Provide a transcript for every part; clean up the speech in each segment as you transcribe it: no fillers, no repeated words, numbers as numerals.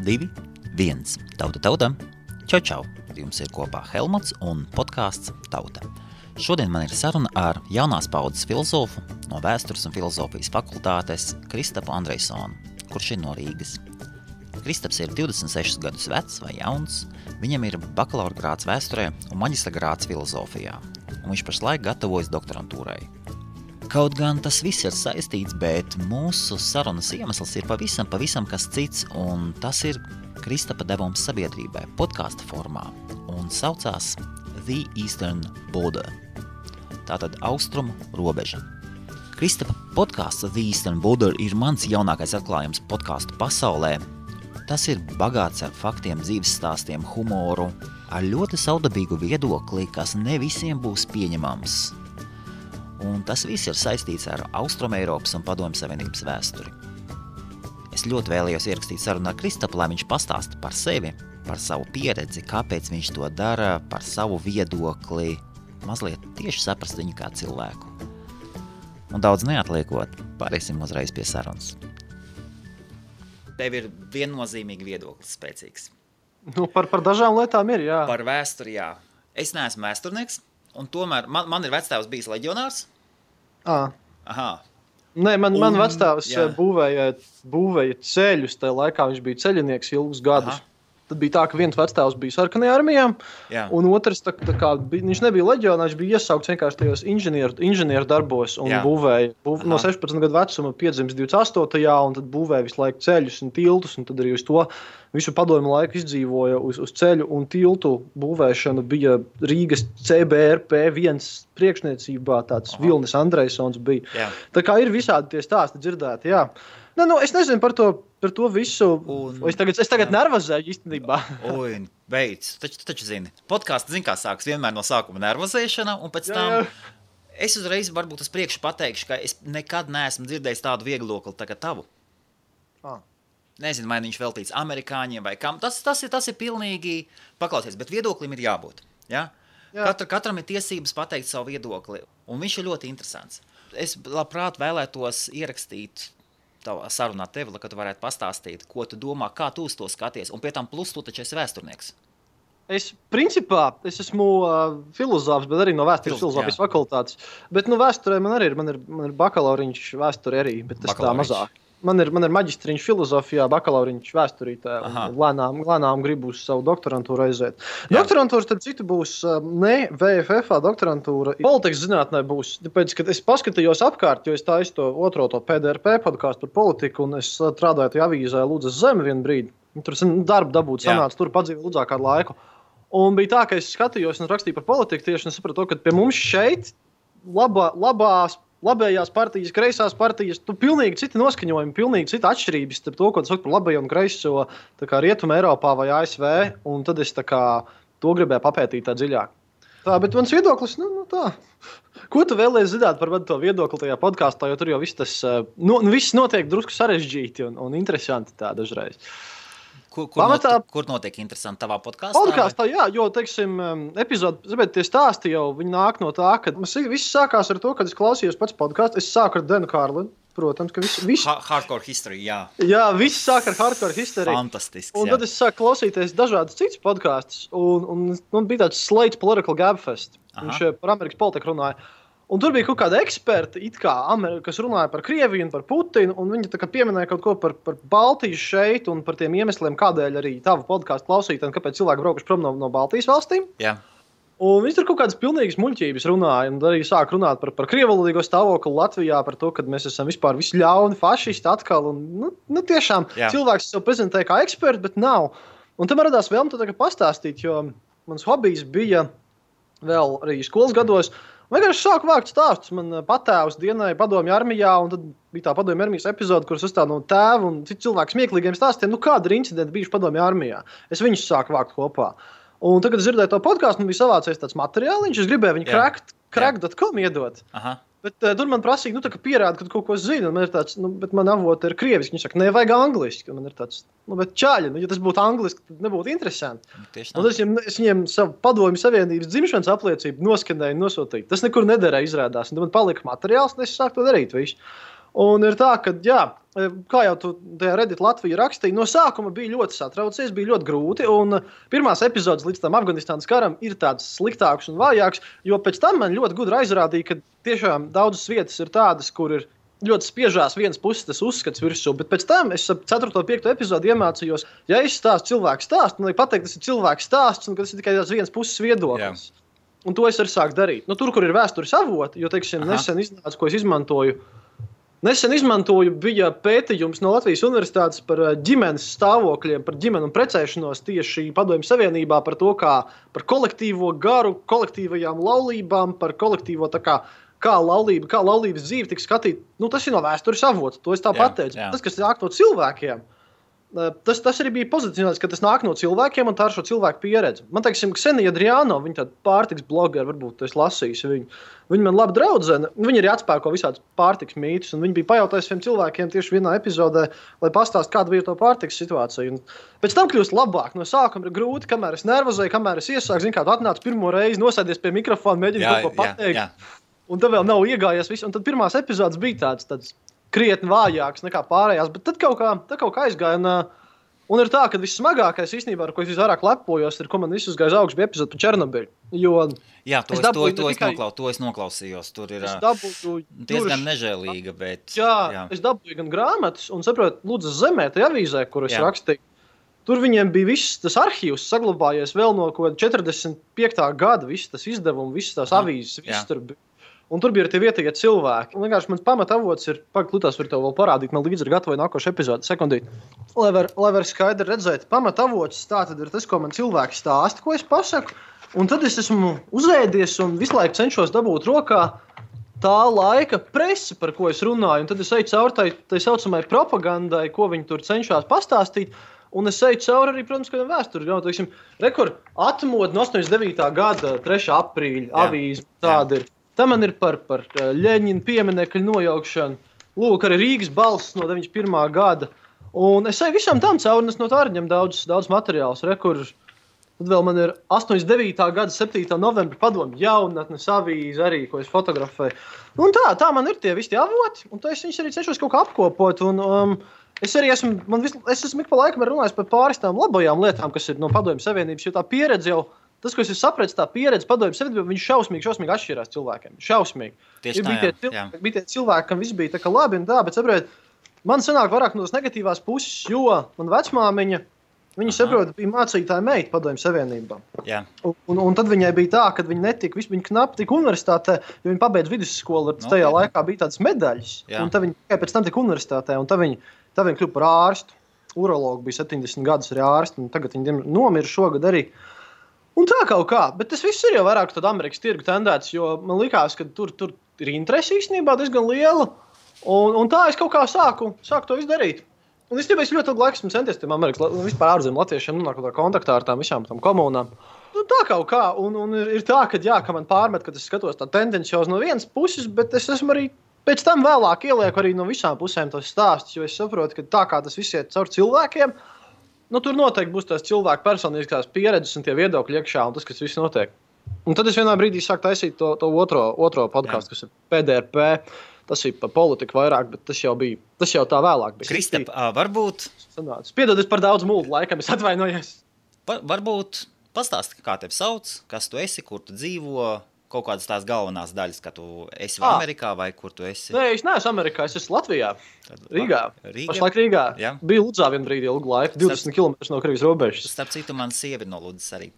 2, 1. Tauta. Čau. Jums ir kopā Helmuts un podcasts Tauta. Šodien man ir saruna ar jaunās paudzes filozofu no Vēstures un filozofijas fakultātes Kristapu Andrejsonu, kurš ir no Rīgas. Kristaps ir 26 gadus vecs vai jauns, viņam ir bakalaura grāds vēsturē un maģistra grāds filozofijā, un viņš pašlaik gatavojas doktorantūrai. Kaut gan tas viss ir saistīts, bet mūsu sarunas iemesls ir pavisam kas cits, un tas ir Kristapa devums sabiedrībai podkasta formā, un saucās The Eastern Border, tātad austrumu robeža. Kristapa podkāsts The Eastern Border ir mans jaunākais atklājums podkāstu pasaulē. Tas ir bagāts ar faktiem, dzīves stāstiem, humoru, ar ļoti saudabīgu viedokli, kas ne visiem būs pieņemams. Un tas viss ir saistīts ar Austrumeiropas un Padomju Savienības vēsturi. Es ļoti vēlējos ierakstīt sarunu ar Kristapu, lai viņš pastāsta par sevi, par savu pieredzi, kāpēc viņš to dara, par savu viedokli, mazliet tieši saprast viņu kā cilvēku. Un daudz neatliekot, pārēsim uzreiz pie sarunas. Tev ir viennozīmīgi viedoklis spēcīgs. Nu, par dažām lietām ir, jā. Par vēsturi, jā. Es neesmu vēsturnieks, un tomēr man ir vectēvs bijis leģionārs. Aha. Nē, man vectēvs būvēja ceļus, tajā laikā viņš bija ceļinieks ilgus gadus. Aha. Tad bija tā, ka viens vectēvs bija sarkanajā armijā, un otrs, viņš nebija leģionā, viņš bija iesaukts vienkārši tajos inženieru darbos un būvēja. No 16 gadu vecuma piedzimis 28. un tad būvēja visu laiku ceļus un tiltus, un tad arī uz to visu padomju laiku izdzīvoja uz ceļu un tiltu būvēšanu bija Rīgas CBRP1 priekšniecībā, tāds Vilnis Andrejsons bija. Jā. Tā kā ir visādi tie stāsti dzirdēti, jā. Es nezinu par to visu. Es tagad nervozēju īstenībā. Beidz. Taču zini. Podkāsts, kā sāks vienmēr no sākuma nervozēšana, un pēc tam es uzreiz varbūt uz priekšu pateikšu, ka es nekad neesmu dzirdējis tādu vieglokli tagad tavu. Nezinu, vai viņš veltīts amerikāņiem vai kam. Tas ir pilnīgi paklausies, bet viedoklim ir jābūt. Ja? Katram ir tiesības pateikt savu viedokli, un viņš ir ļoti interesants. Es labprāt vēlētos ierakstīt tavā sarunā tevi, lai tu varētu pastāstīt, ko tu domā, kā tu uz to skaties, un pie tam plus tu taču esi vēsturnieks. Principā, es esmu filozofs, bet arī no vēstures filozofijas fakultātes. Bet vēsturē man ir bakalauriņš vēsture arī, bet tas tā mazāk. Man ir maģistriņš filozofijā, bakalauriņš vēsturītē, un lēnām gribu uz savu doktorantūru aiziet. Doktorantūra, starp citu, būs ne VFF doktorantūra. Politikas zinātnē būs, tāpēc, kad es paskatījos apkārt, jo es taisu to PDRP podkāstu par politiku, un es strādāju tajā avīzē Lūdzas Zeme vienu brīdi. Tur darbu dabūt sanāca, tur padzīvoju Lūdzā kādu laiku. Un bija tā, ka es skatījos un rakstīju par politiku tieši, un sapratu, ka pie mums šeit labējās partijas, kreisās partijas, pilnīgi citi noskaņojumi, pilnīgi cita atšķirības starp to, ko tu saki par labējo un kreiso Rietuma Eiropā vai ASV, un tad es to gribēju papētīt tā dziļāk. Bet mans viedoklis, tā. Ko tu vēlies zināt par to viedokli tajā podkāstā, jo tur jau viss viss notiek drusku sarežģīti un interesanti tā dažreiz. Kur notiek interesanti tavā podkāstā? Podkāstā, jā, jo, teiksim, epizodi, tie stāsti jau, viņi nāk no tā, ka viss sākās ar to, kad es klausījos pats podkāstu. Es sāku ar Denu Kārlinu, protams, ka viss... Hardcore history, jā. Jā, viss sāk ar hardcore history. Fantastisks, un tad es sāku klausīties dažādas citas podkāstus, un bija tāds Slate's Political Gabfest. Viņš par Amerikas politiku runāja. Un tur bija kaut kāda eksperta, kas runāja par Krieviju un par Putinu, un viņi pieminēja kaut ko par Baltiju šeit un par tiem iemesliem, kādēļ arī tavu podkāstu klausīt, un kāpēc cilvēki braukuši prom no Baltijas valstīm. Jā. Un viņi tur kaut kādas pilnīgas muļķības runāja, un arī sāk runāt par krievalodīgo stāvokli Latvijā, par to, ka mēs esam vispār visi ļauni fašisti atkal, un tiešām cilvēks sev prezentē kā eksperts, bet nav. Un tam radās vēlme pastāstīt, jo mans hobijs bija vēl arī skolas gados. Vienkārši sāku vākt stāstus. Man patēvs dienēja padomju armijā, un tad bija tā padomju armijas epizode, kuras uzstāda no tēva un citu cilvēku smieklīgiem stāstiem. Kāda ir incidenti bijuši padomju armijā? Es viņus sāku vākt kopā. Un tagad es dzirdēju to podkāstu, man bija savācies tāds materiāliņš, es gribēju viņu crack.com iedot. Aha. Bet tur man prasīja, pierāda, ka tu kaut ko zini, un man ir tāds, bet man avoti ir krieviski. Viņi saka, nevajag angliski, un man ir tāds, bet čāļi, ja tas būtu angliski, tad nebūtu interesanti. Un es viņiem savu padomju savienības dzimšanas apliecību noskanēju, nosūtīju. Tas nekur nederēja izrādās, un tad man palika materiāls, un es sāku to darīt visu. Un ir tā, ka, jā, kā jau tu tajā Reddit Latvija rakstīja, no sākuma bija ļoti satraucies, bija ļoti grūti, un pirmās epizodes līdz tam Afganistānas karam ir tādas sliktākas un vājākas, jo pēc tam man ļoti gudri aizrādīja, ka tiešām daudzas vietas ir tādas, kur ir ļoti spiežās vienas puses tas uzskats virsū, bet pēc tam es 4. un 5. epizodi iemācījos, ja es stāstu cilvēku stāstu, man liek pateikt, tas ir cilvēku stāsts, un ka tas ir tikai tās vienas puses viedoklis. Jā. Un to es arī sāku darīt. Nu, tur, kur ir vēstures avoti, jo, teiksim, nesen iznāca, ko es izmantoju. Nesen izmantoju, bija pētījums no Latvijas universitātes par ģimenes stāvokļiem, par ģimenu un precēšanos tieši Padomju Savienībā, par to, kā par kolektīvo garu, kolektīvajām laulībām, par kolektīvo kā laulības dzīve tika skatīta. Nu, tas ir no vēstures avots, to es tā pateicu. Tas, kas nāk no cilvēkiem, tas arī bija pozicionēts, ka tas nāk no cilvēkiem un tā ir šo cilvēku pieredze. Man, teiksim, Ksenija Adriano, viņa tāda pārtiks blogeri, varbūt tu esi lasījis viņu. Viņa man laba draudzene, viņa arī atspēko visādas pārtiks mītus, un viņa bija pajautājis saviem cilvēkiem tieši vienā epizodē, lai pastāst, kāda bija to pārtiks situācija. Un pēc tam kļūst labāk. No sākuma ir grūti, kamēr es nervozēju, kamēr es iesāku, zinu, kā tu atnāc pirmo reizi, nosēdies pie mikrofona, mēģini kaut ko pateikt. Jā. Un tad vēl nav iegājies viss, un tad pirmās epizodes bija tāds krietni vājāks nekā pārējās, bet tad kaut kā aizgāja. Un ir tā, ka vissmagākais īstenībā, ar ko es visvairāk lepojos, ir, ko man viss uzgāja augsts, bija epizode par Černobiļu. Jā, to es noklausījos. Tur ir diezgan nežēlīga, bet... Jā, es dabūju gan grāmatas, un saprotu, Lūdzas zemē, tajā avīzē, kur es rakstīju. Tur viņiem bija viss tas arhīvs saglabājies vēl no 45. gada, viss tas izdevumi, visas tās avīzes, viss tur bija. Un tur bija arī tie vietējie cilvēki. Un vienkārši mans pamatavots ir, Lutās var tev vēl parādīt, man līdzi ir gatavoja nākošu epizodi, sekundīt. Lai var skaidri redzēt, pamatavots tā tad ir tas, ko man cilvēki stāsta, ko es pasaku. Un tad es esmu uzēdies un visu laiku cenšos dabūt rokā tā laika presi, par ko es runāju. Un tad es eju cauri tai saucamai propagandai, ko viņi tur cenšas pastāstīt. Un es eju cauri arī, protams, kādam vēsturi. Rekord atmodu no 89. gada 3. aprīļa avīze tāda ir. Tā man ir par Ļeņina pieminekļu nojaukšanu. Lūk, arī Rīgas balss no 91. gada. Un es eju visam tam cauri, un es no tā arī ņem daudz materiālus. Tad vēl man ir 89. gada 7. novembra Padomju jaunatnes avīze arī, ko es fotografēju. Un tā man ir tie visi avoti, un es viņus arī cenšos kaut kā apkopot. Un, es esmu ik pa laikam runājis par pāris tām labajām lietām, kas ir no Padomju Savienības, jo tā pieredze jau, tas, ko es sapratu, tā pieredze Padomju Savienībā, viņš šausmīgi atšķirās cilvēkiem. Šausmīgi. Tieši bija tie cilvēki, kam viss bija tā kā labi un tā, bet saprot, man sanāk vairāk no tās negatīvās puses, jo man vecmāmiņa, viņa saprot, bija mācītāja meita Padomju Savienībā. Un tad viņai bija tā, ka viņa viņa knapi tika universitātē, jo viņa pabeidz vidusskolu, tajā laikā bija tādas medaļas, un tad viņa tikai pēc tam tika universitātē, un tad viņa kļuva par ārstu. Urologu bija 70 gadus arī ārstu, un tagad viņa nomira šogad arī. Un tā kaut kā, bet tas viss ir jau vairāk tāda Amerikas tirgu tendēts, jo man likās, ka tur ir interesi īstenībā diezgan liela, un tā es kaut kā sāku to izdarīt. Un es ļoti ilgu laiku esmu centies tiem Amerikas, vispār ārzemju latviešiem nonāk kontaktā ar tām visām tam komunām. Nu, tā kaut kā, un ir tā, ka man pārmet, ka es skatos tā tendenciāli no vienas puses, bet es esmu arī pēc tam vēlāk ielieku arī no visām pusēm tos stāstus, jo es saprotu, ka tā kā tas viss iet caur cilvēkiem, tur noteikti būs tās cilvēku personiskās pieredzes un tie viedokļi iekšā un tas, kas viss notiek. Un tad es vienā brīdī sāku taisīt to otro podcastu, kas ir PDRP. Tas ir par politiku vairāk, bet tas jau tā vēlāk bija. Kristap, varbūt... Piedod, es par daudz mūlu laikam, es atvainojos. Varbūt pastāsti, kā tevi sauc, kas tu esi, kur tu dzīvo, kaut kādas tās galvenās daļas, ka tu esi Amerikā vai kur tu esi? Nē, es neesmu Amerikā, es esmu Latvijā, Rīgā. Pašlaik Rīgā. Jā. Biju Ludzā vienu brīdi ilgu laiku, 20 km no Krievijas robežas. Starp citu, man sievi no Ludzas arī.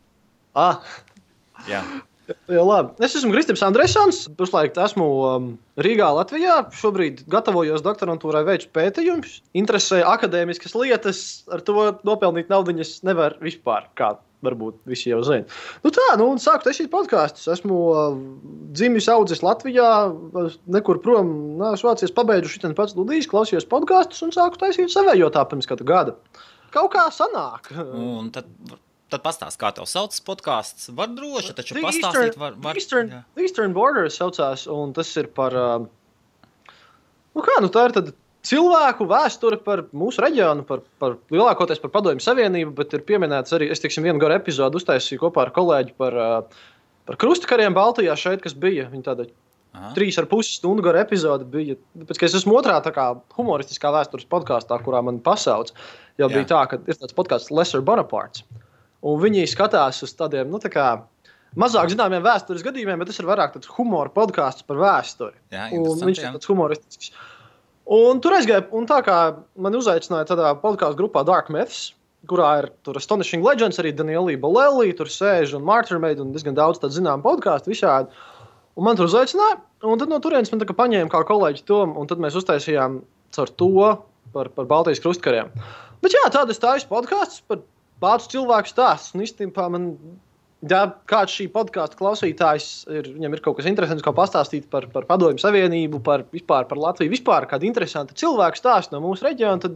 Jā. Jā, labi. Es esmu Kristaps Andresons, pašlaik esmu Rīgā, Latvijā. Šobrīd gatavojos doktorantūrai veicu pētījumus. Interesē akadēmiskas lietas, ar to nopelnīt naudiņas nevar vispār, kā varbūt visi jau zina. Un sāku taisīt podkastus. Esmu dzimis audzis Latvijā, nekur prom, Vācijas pabeidzu šitan pats studijas, klausījos podkastus un sāku taisīt savējo tā pirms kāda gada. Kaut kā sanāk. Un tad pastāst, kā tev sauc podcasts. Var droši, taču pastāstīt var. Eastern Borders saucās, un tas ir par... tā ir tad cilvēku vēsture par mūsu reģionu, par lielākoties par Padomju Savienību, bet ir pieminēts arī, es vienu garu epizodu uztaisīju kopā ar kolēģi par krustakariem Baltijā šeit, kas bija. Viņi tāda 3,5 stundu gara epizode bija. Pēc, ka es esmu otrā tā kā humoristiskā vēstures podkāstā, kurā man pasauc, jau bija tā, ka ir tāds podkāsts Lesser Bonapartes. Un viņi skatās uz tādiem, tā kā mazāk zināmiem vēstures gadījumiem, bet tas ir vairāk tāds humora podkāsts par vēsturi. Jā, un viņš ir tāds humoristisks. Un tur aizgāja, un tā kā man uzaicināja tādā podkāstu grupā Dark Myths, kurā ir tur Astonishing Legends, arī Daniela Bolelli, tur sēž un Martyrmade un diezgan daudz tādu zinām podkāstu visādi. Un man tur uzaicināja, un tad no turienes man tā kā paņēma kā kolēģi Tomu, un tad mēs uztaisījām caur to par Baltijas krustkariem. Bet jā, tādas taisas podkāstus par vācu cilvēku stāstus. Un īstenībā man, ja kāds šī podkāsta klausītājs, viņam ir kaut kas interesants, ko pastāstīt par Padomju Savienību, vispār par Latviju, vispār kādu interesantu cilvēku stāstu no mūsu reģiona, tad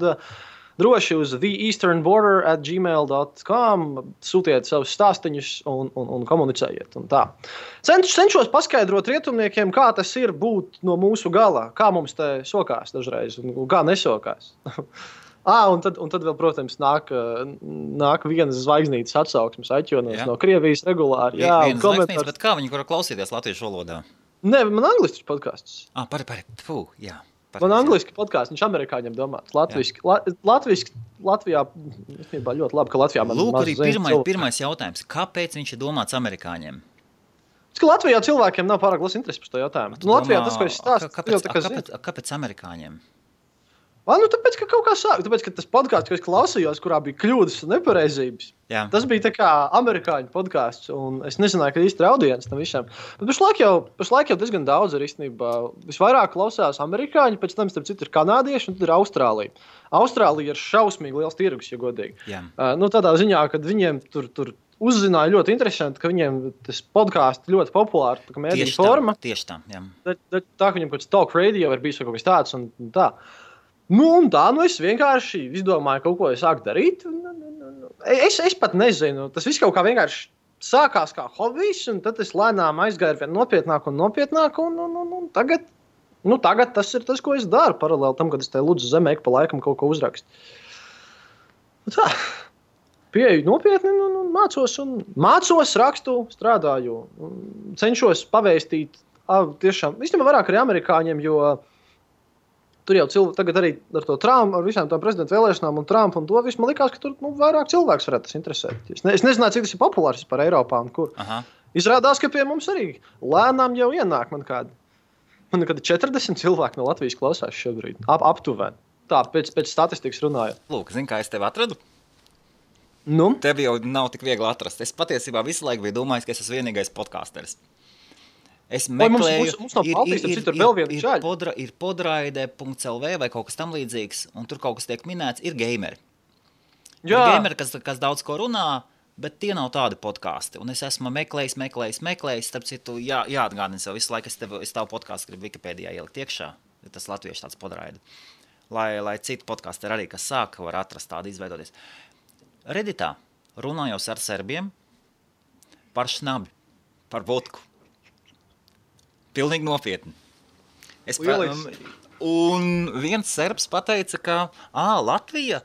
droši uz theeasternborder@gmail.com sūtiet savus stāstiņus un komunicējiet. Un tā. Cenšos paskaidrot rietumniekiem, kā tas ir būt no mūsu gala, kā mums te sokās dažreiz un kā nesokās. Un tad vēl, protams, nāk vienas zvaigznītes atsauksmes aķonos no Krievijas regulāri. Jā, vienas zvaigznītes, bet kā viņi var klausīties latviešu valodā? Nē, man angliski podkāsts. Jā. Man angliski podkāsts, viņš amerikāņiem domāts. Latviski, Latvijā, ļoti labi, ka Latvijā man Lūk, arī pirmais jautājums. Kāpēc viņš ir domāts amerikāņiem? Tas, ka Latvijā cilvēkiem nav pārāk liels interesi par to jautājumu. Latvijā tas, ko es stāstu, kāpēc amerikāņiem? Tāpēc, ka kaut kā sāk. Tāpēc, ka tas podkāsts, ko es klausījos, kurā bija kļūdas un nepareizības, tas bija tā kā amerikāņu podkāsts, un es nezināju, ka īsti ir audience tam visam. Bet pašlaik jau diezgan daudz ir īstenībā. Visvairāk klausās amerikāņi, pēc tam, starp citu, ir kanādieši, un tad ir Austrālija. Austrālija ir šausmīgi liels tirgus, ja godīgi. Tādā ziņā, kad viņiem tur uzzināja ļoti interesanti, ka viņiem tas podkāsts ļoti populāri, tā kā mēdīņu forma. Tieši tā, jā. Tā, ka viņiem kaut kāds talk radio ir bijis kaut kas tāds, un tā. Un tā, es vienkārši izdomāju kaut ko, sāku darīt. Es pat nezinu, tas viss kaut kā vienkārši sākās kā hobijs, un tad es lēnām aizgāju vien nopietnāk, un tagad tas ir tas, ko es daru, paralēli tam, kad es te lūdzu zemē pa laikam kaut ko uzrakstu. Tā, pieeju nopietni, un mācos, rakstu, strādāju, cenšos pavēstīt, tiešām, īstenībā vairāk arī amerikāņiem, jo tur jau tagad arī ar to Trumpu, ar visām tām prezidenta vēlēšanām un Trumpu un to visu, man likās, ka tur vairāk cilvēks varētu tas interesēt. Es nezināju, cik tas ir populārs par Eiropā un kur. Izrādās, ka pie mums arī lēnām jau ienāk man kādi 40 cilvēki no Latvijas klausās šobrīd. Aptuveni. Tā, pēc statistikas runājot. Lūk, zini, kā es tevi atradu? Tevi jau nav tik viegli atrast. Es patiesībā visu laiku biju domājis, ka es esmu vienīgais podcasteris. Es meklēju, ir podraide.lv vai kaut kas tam līdzīgs, un tur kaut kas tiek minēts, ir gameri. Ir gameri, kas daudz ko runā, bet tie nav tādi podkāsti. Un es esmu meklējis, starp citu, jāatgādina sev visu laiku, es tavu podkāstu gribu Wikipēdijā ielikt iekšā, tas latviešu tāds podraide. Lai citi podkāsti arī, kas sāk, var atrast tādu izveidoties. Redditā runājos ar serbiem par šnabi, par vodku. Pilnīgi nopietni. Un viens serbs pateica, ka Latvija,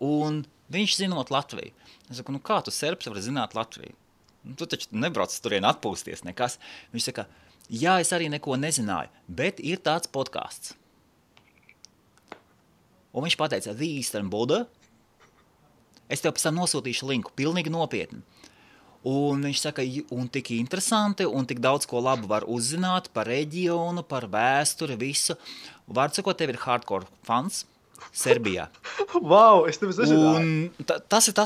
un viņš zinot Latviju. Es saku, kā tu serbs vari zināt Latviju? Tu taču nebrauc turien atpūsties nekas. Viņš saka, es arī neko nezināju, bet ir tāds podkāsts. Un viņš pateica, The Eastern Border. Es tev pēc tam nosūtīšu linku, pilnīgi nopietni. Un viņš saka, un tik interesanti, un tik daudz ko labu var uzzināt par reģionu, par vēsturi, visu. Vārds sakot, tev ir hardcore fans Serbijā. Wow, es tev nezināju. Un tas ir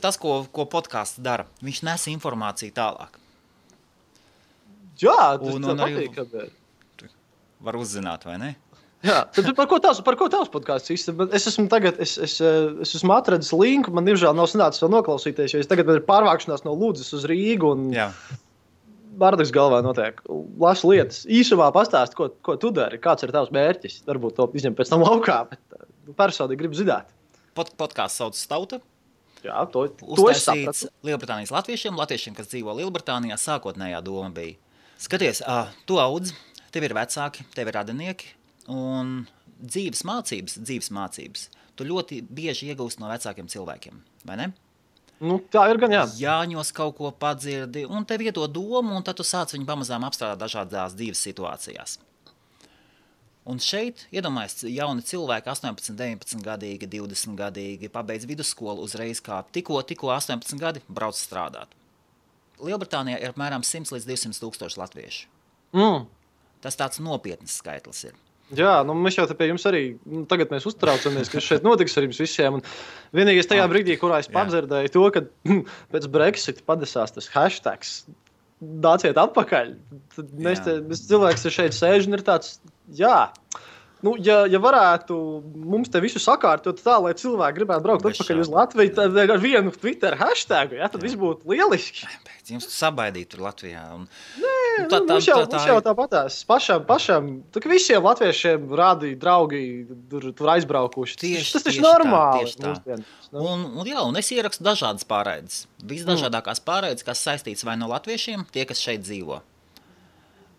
tas, ko podkāsts dara. Viņš nes informāciju tālāk. Jā, tas patīk. Var uzzināt, vai ne? Jā, tad par ko tavs podkāsts īsti? Es esmu atradis linku, man diemžēl nav sanācis vēl noklausīties, jo es tagad ir pārvākšanās no Ludzas uz Rīgu un Bārdakas galvā notiek. Lasu lietas. Īsumā pastāst, ko tu dari, kāds ir tavs mērķis. Varbūt to izņem pēc tam laukā, bet personīgi gribu zināt. Podkāsts sauc Tauta. Jā, to es sapratu. Lielbritānijas latviešiem, kas dzīvo Lielbritānijā, sākotnējā doma bija. Skaties, tu audz, tev ir vecāki, tev ir radinieki. Un dzīves mācības, tu ļoti bieži iegūst no vecākiem cilvēkiem, vai ne? Nu, tā ir gan, jā. Jāņos kaut ko padzirdi, un tev iedod domu, un tad tu sāc viņu pamazām apstrādāt dažādās dzīves situācijās. Un šeit, iedomājies, jauni cilvēki, 18, 19 gadīgi, 20 gadīgi, pabeidz vidusskolu uzreiz kā tikko 18 gadi brauc strādāt. Lielbritānijā ir apmēram 100 līdz 200 tūkstoši latviešu. Tas tāds nopietns skaitlis ir. Jā, nu mēs jau te pie jums arī, tagad mēs uztraucamies, kas šeit notiks ar jums visiem. Un vienīgais tajā brīdī, kurā es padzirdēju to, ka pēc Brexit padesās tas hashtags, nāciet atpakaļ. Tad mēs cilvēks šeit sēž un ir tāds, nu, ja varētu mums te visu sakārtot tā, lai cilvēki gribētu braukt atpakaļ uz Latviju, tad ar vienu Twitter hashtagu, tad viss būtu lieliski. Jums sabaidīt tur Latvijā. Mums jau tāpatās. Pašam, visiem latviešiem rādi draugi tur aizbraukuši. Tas taču normāli. Un es ierakstu dažādas pārraides. Visdažādākās pārraides, kas saistīts vai no latviešiem, tie, kas šeit dzīvo.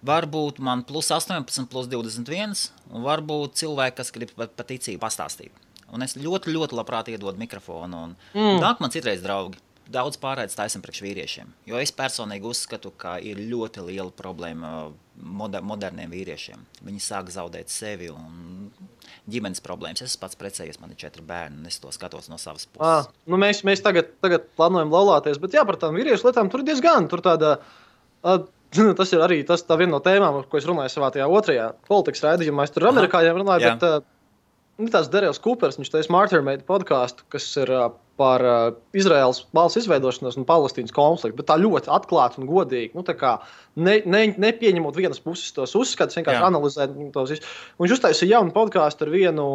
Varbūt man plus 18, plus 21, un varbūt cilvēki, kas grib par ticību pastāstīt. Un es ļoti, ļoti labprāt iedodu mikrofonu. Nāk man citreiz draugi. Daudz pārraides taisam priekš vīriešiem. Jo es personīgi uzskatu, ka ir ļoti liela problēma moderniem vīriešiem. Viņi sāk zaudēt sevi un ģimenes problēmas. Es pats precējies, man ir 4 bērni, un es to skatos no savas puses. Nu mēs tagad plānojam laulāties, bet par tām vīriešu lietām tur diezgan. Tur tāda... Tas ir arī tā viena no tēmām, ko es runāju savā tajā otrajā politikas raidījumā. Es tur ar amerikāņiem runāju, bet tāds Darrells Coopers, viņš taisa Martyrmade podcastu, kas ir par Izraēlas valsts izveidošanos un Palestīnas konfliktu, bet tā ļoti atklāti un godīgi. Nu, tā kā nepieņemot vienas puses tos uzskatus, vienkārši analizēt tos visus. Viņš uztaisīja jaunu podcastu ar vienu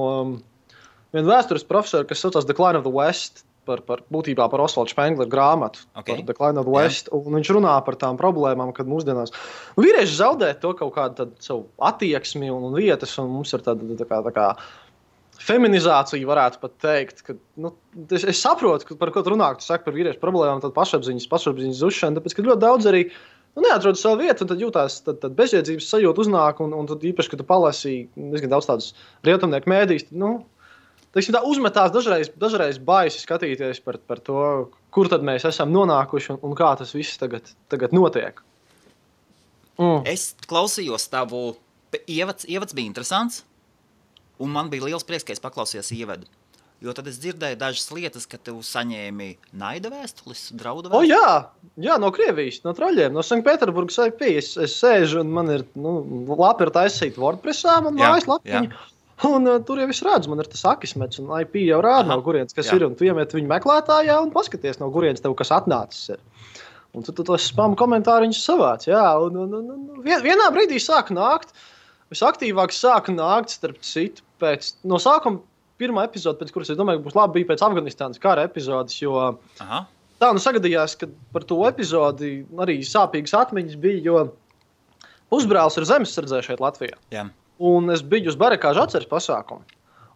vēstures profesoru, kas saucās Decline of the West, būtībā par Osvaldu Spengleru grāmatu, par Decline of the West, un viņš runā par tām problēmām, kad mūsdienās vīrieši zaudē to kaut kādu savu attieksmi un vietas, un mums ir tā kā feminizācija, varētu pat teikt, ka, es saprotu, par ko tu runā, tu saki par vīriešu problēmām, tad pašapziņas zušana, tāpēc, ka ļoti daudz arī neatrod savu vietu, un tad jūtās bezjēdzības sajūta uznāk, un tad īpaši, kad tu palasi diezgan daudz tādus rietumnieku mēdījus, tā uzmetās dažreiz baisi skatīties par to, kur tad mēs esam nonākuši un kā tas viss tagad notiek. Es klausījos tavu ievads bija interesants, un man bija liels prieks, ka es paklausījos ievadu. Jo tad es dzirdēju dažas lietas, ka tu saņēmi naida vēstulis, draudu vēstulis. Jā, no Krievijas, no traļiem, no Sanktpēterburgas IP. Es sēžu un man ir lapi ir taisīt WordPressā, man mājas lapiņa. Un tur jau es redzu, man ir tas akismets, un IP jau rāda, no kurienes kas ir, un tu iemet viņu meklētājā un paskaties, no kurienes tev kas atnācis ir. Un tu tos spam komentāriņus savāc, un vienā brīdī sāk nākt, visaktīvāk sāk nākt, starp citu, no sākuma pirmā epizode, pēc kuras es domāju, ka būs labi, bija pēc Afganistānas kara epizodes, jo tā sagadījās, ka par to epizodi arī sāpīgas atmiņas bija, jo pusbrālis ir zemesardzē šeit Latvijā. Jā. Un es biju uz barakāžu atceres pasākumu.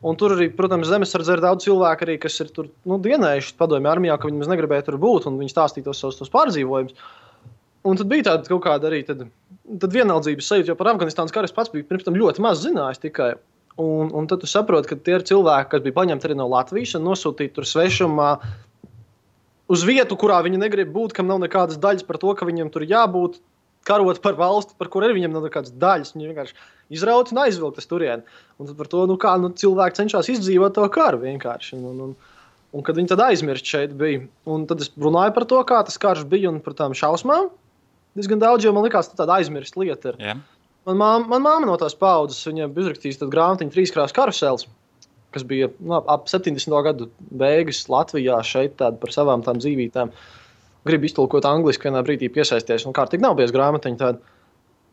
Un tur arī, protams, zemesardzē ir daudz cilvēku arī, kas ir tur dienējuši padomju armijā, ka viņi negribēja tur būt, un viņi stāstīja tos pārdzīvojumus. Un tad bija tāda kaut kāda arī tad vienaldzības sajūta, jo par Afganistānas karu es pats biju pirms tam ļoti maz zinājis tikai. Un tad tu saproti, ka tie ir cilvēki, kas bija paņemti arī no Latvijas un nosūtīti tur svešumā uz vietu, kurā viņi negrib būt, kam nav nekādas daļas par to, ka viņiem tur jābūt, karot par valsti, par kur arī viņam nav nekādas daļas. Viņi vienkārši izraut un aizvilkt turien. Un tad par to, cilvēki cenšas izdzīvot to karu vienkārši. Un kad viņi tad aizmirst šeit bija. Un tad es runāju par to, kā tas karš bija un par tām šausmām. Diezgan daudz, jo man likās, ka tāda aizmirst lieta ir. Yeah. Man māma no tās paudzes, viņa bija uzrakstījis tādu grāmatiņu 3 krāsu karusels, kas bija ap 70. gadu beigas Latvijā šeit par savām tām dzīvītēm. Gribu iztulkot angliski, vienā brīdī piesaisties, un kārtīgi nav bijis grāmatiņa tāda.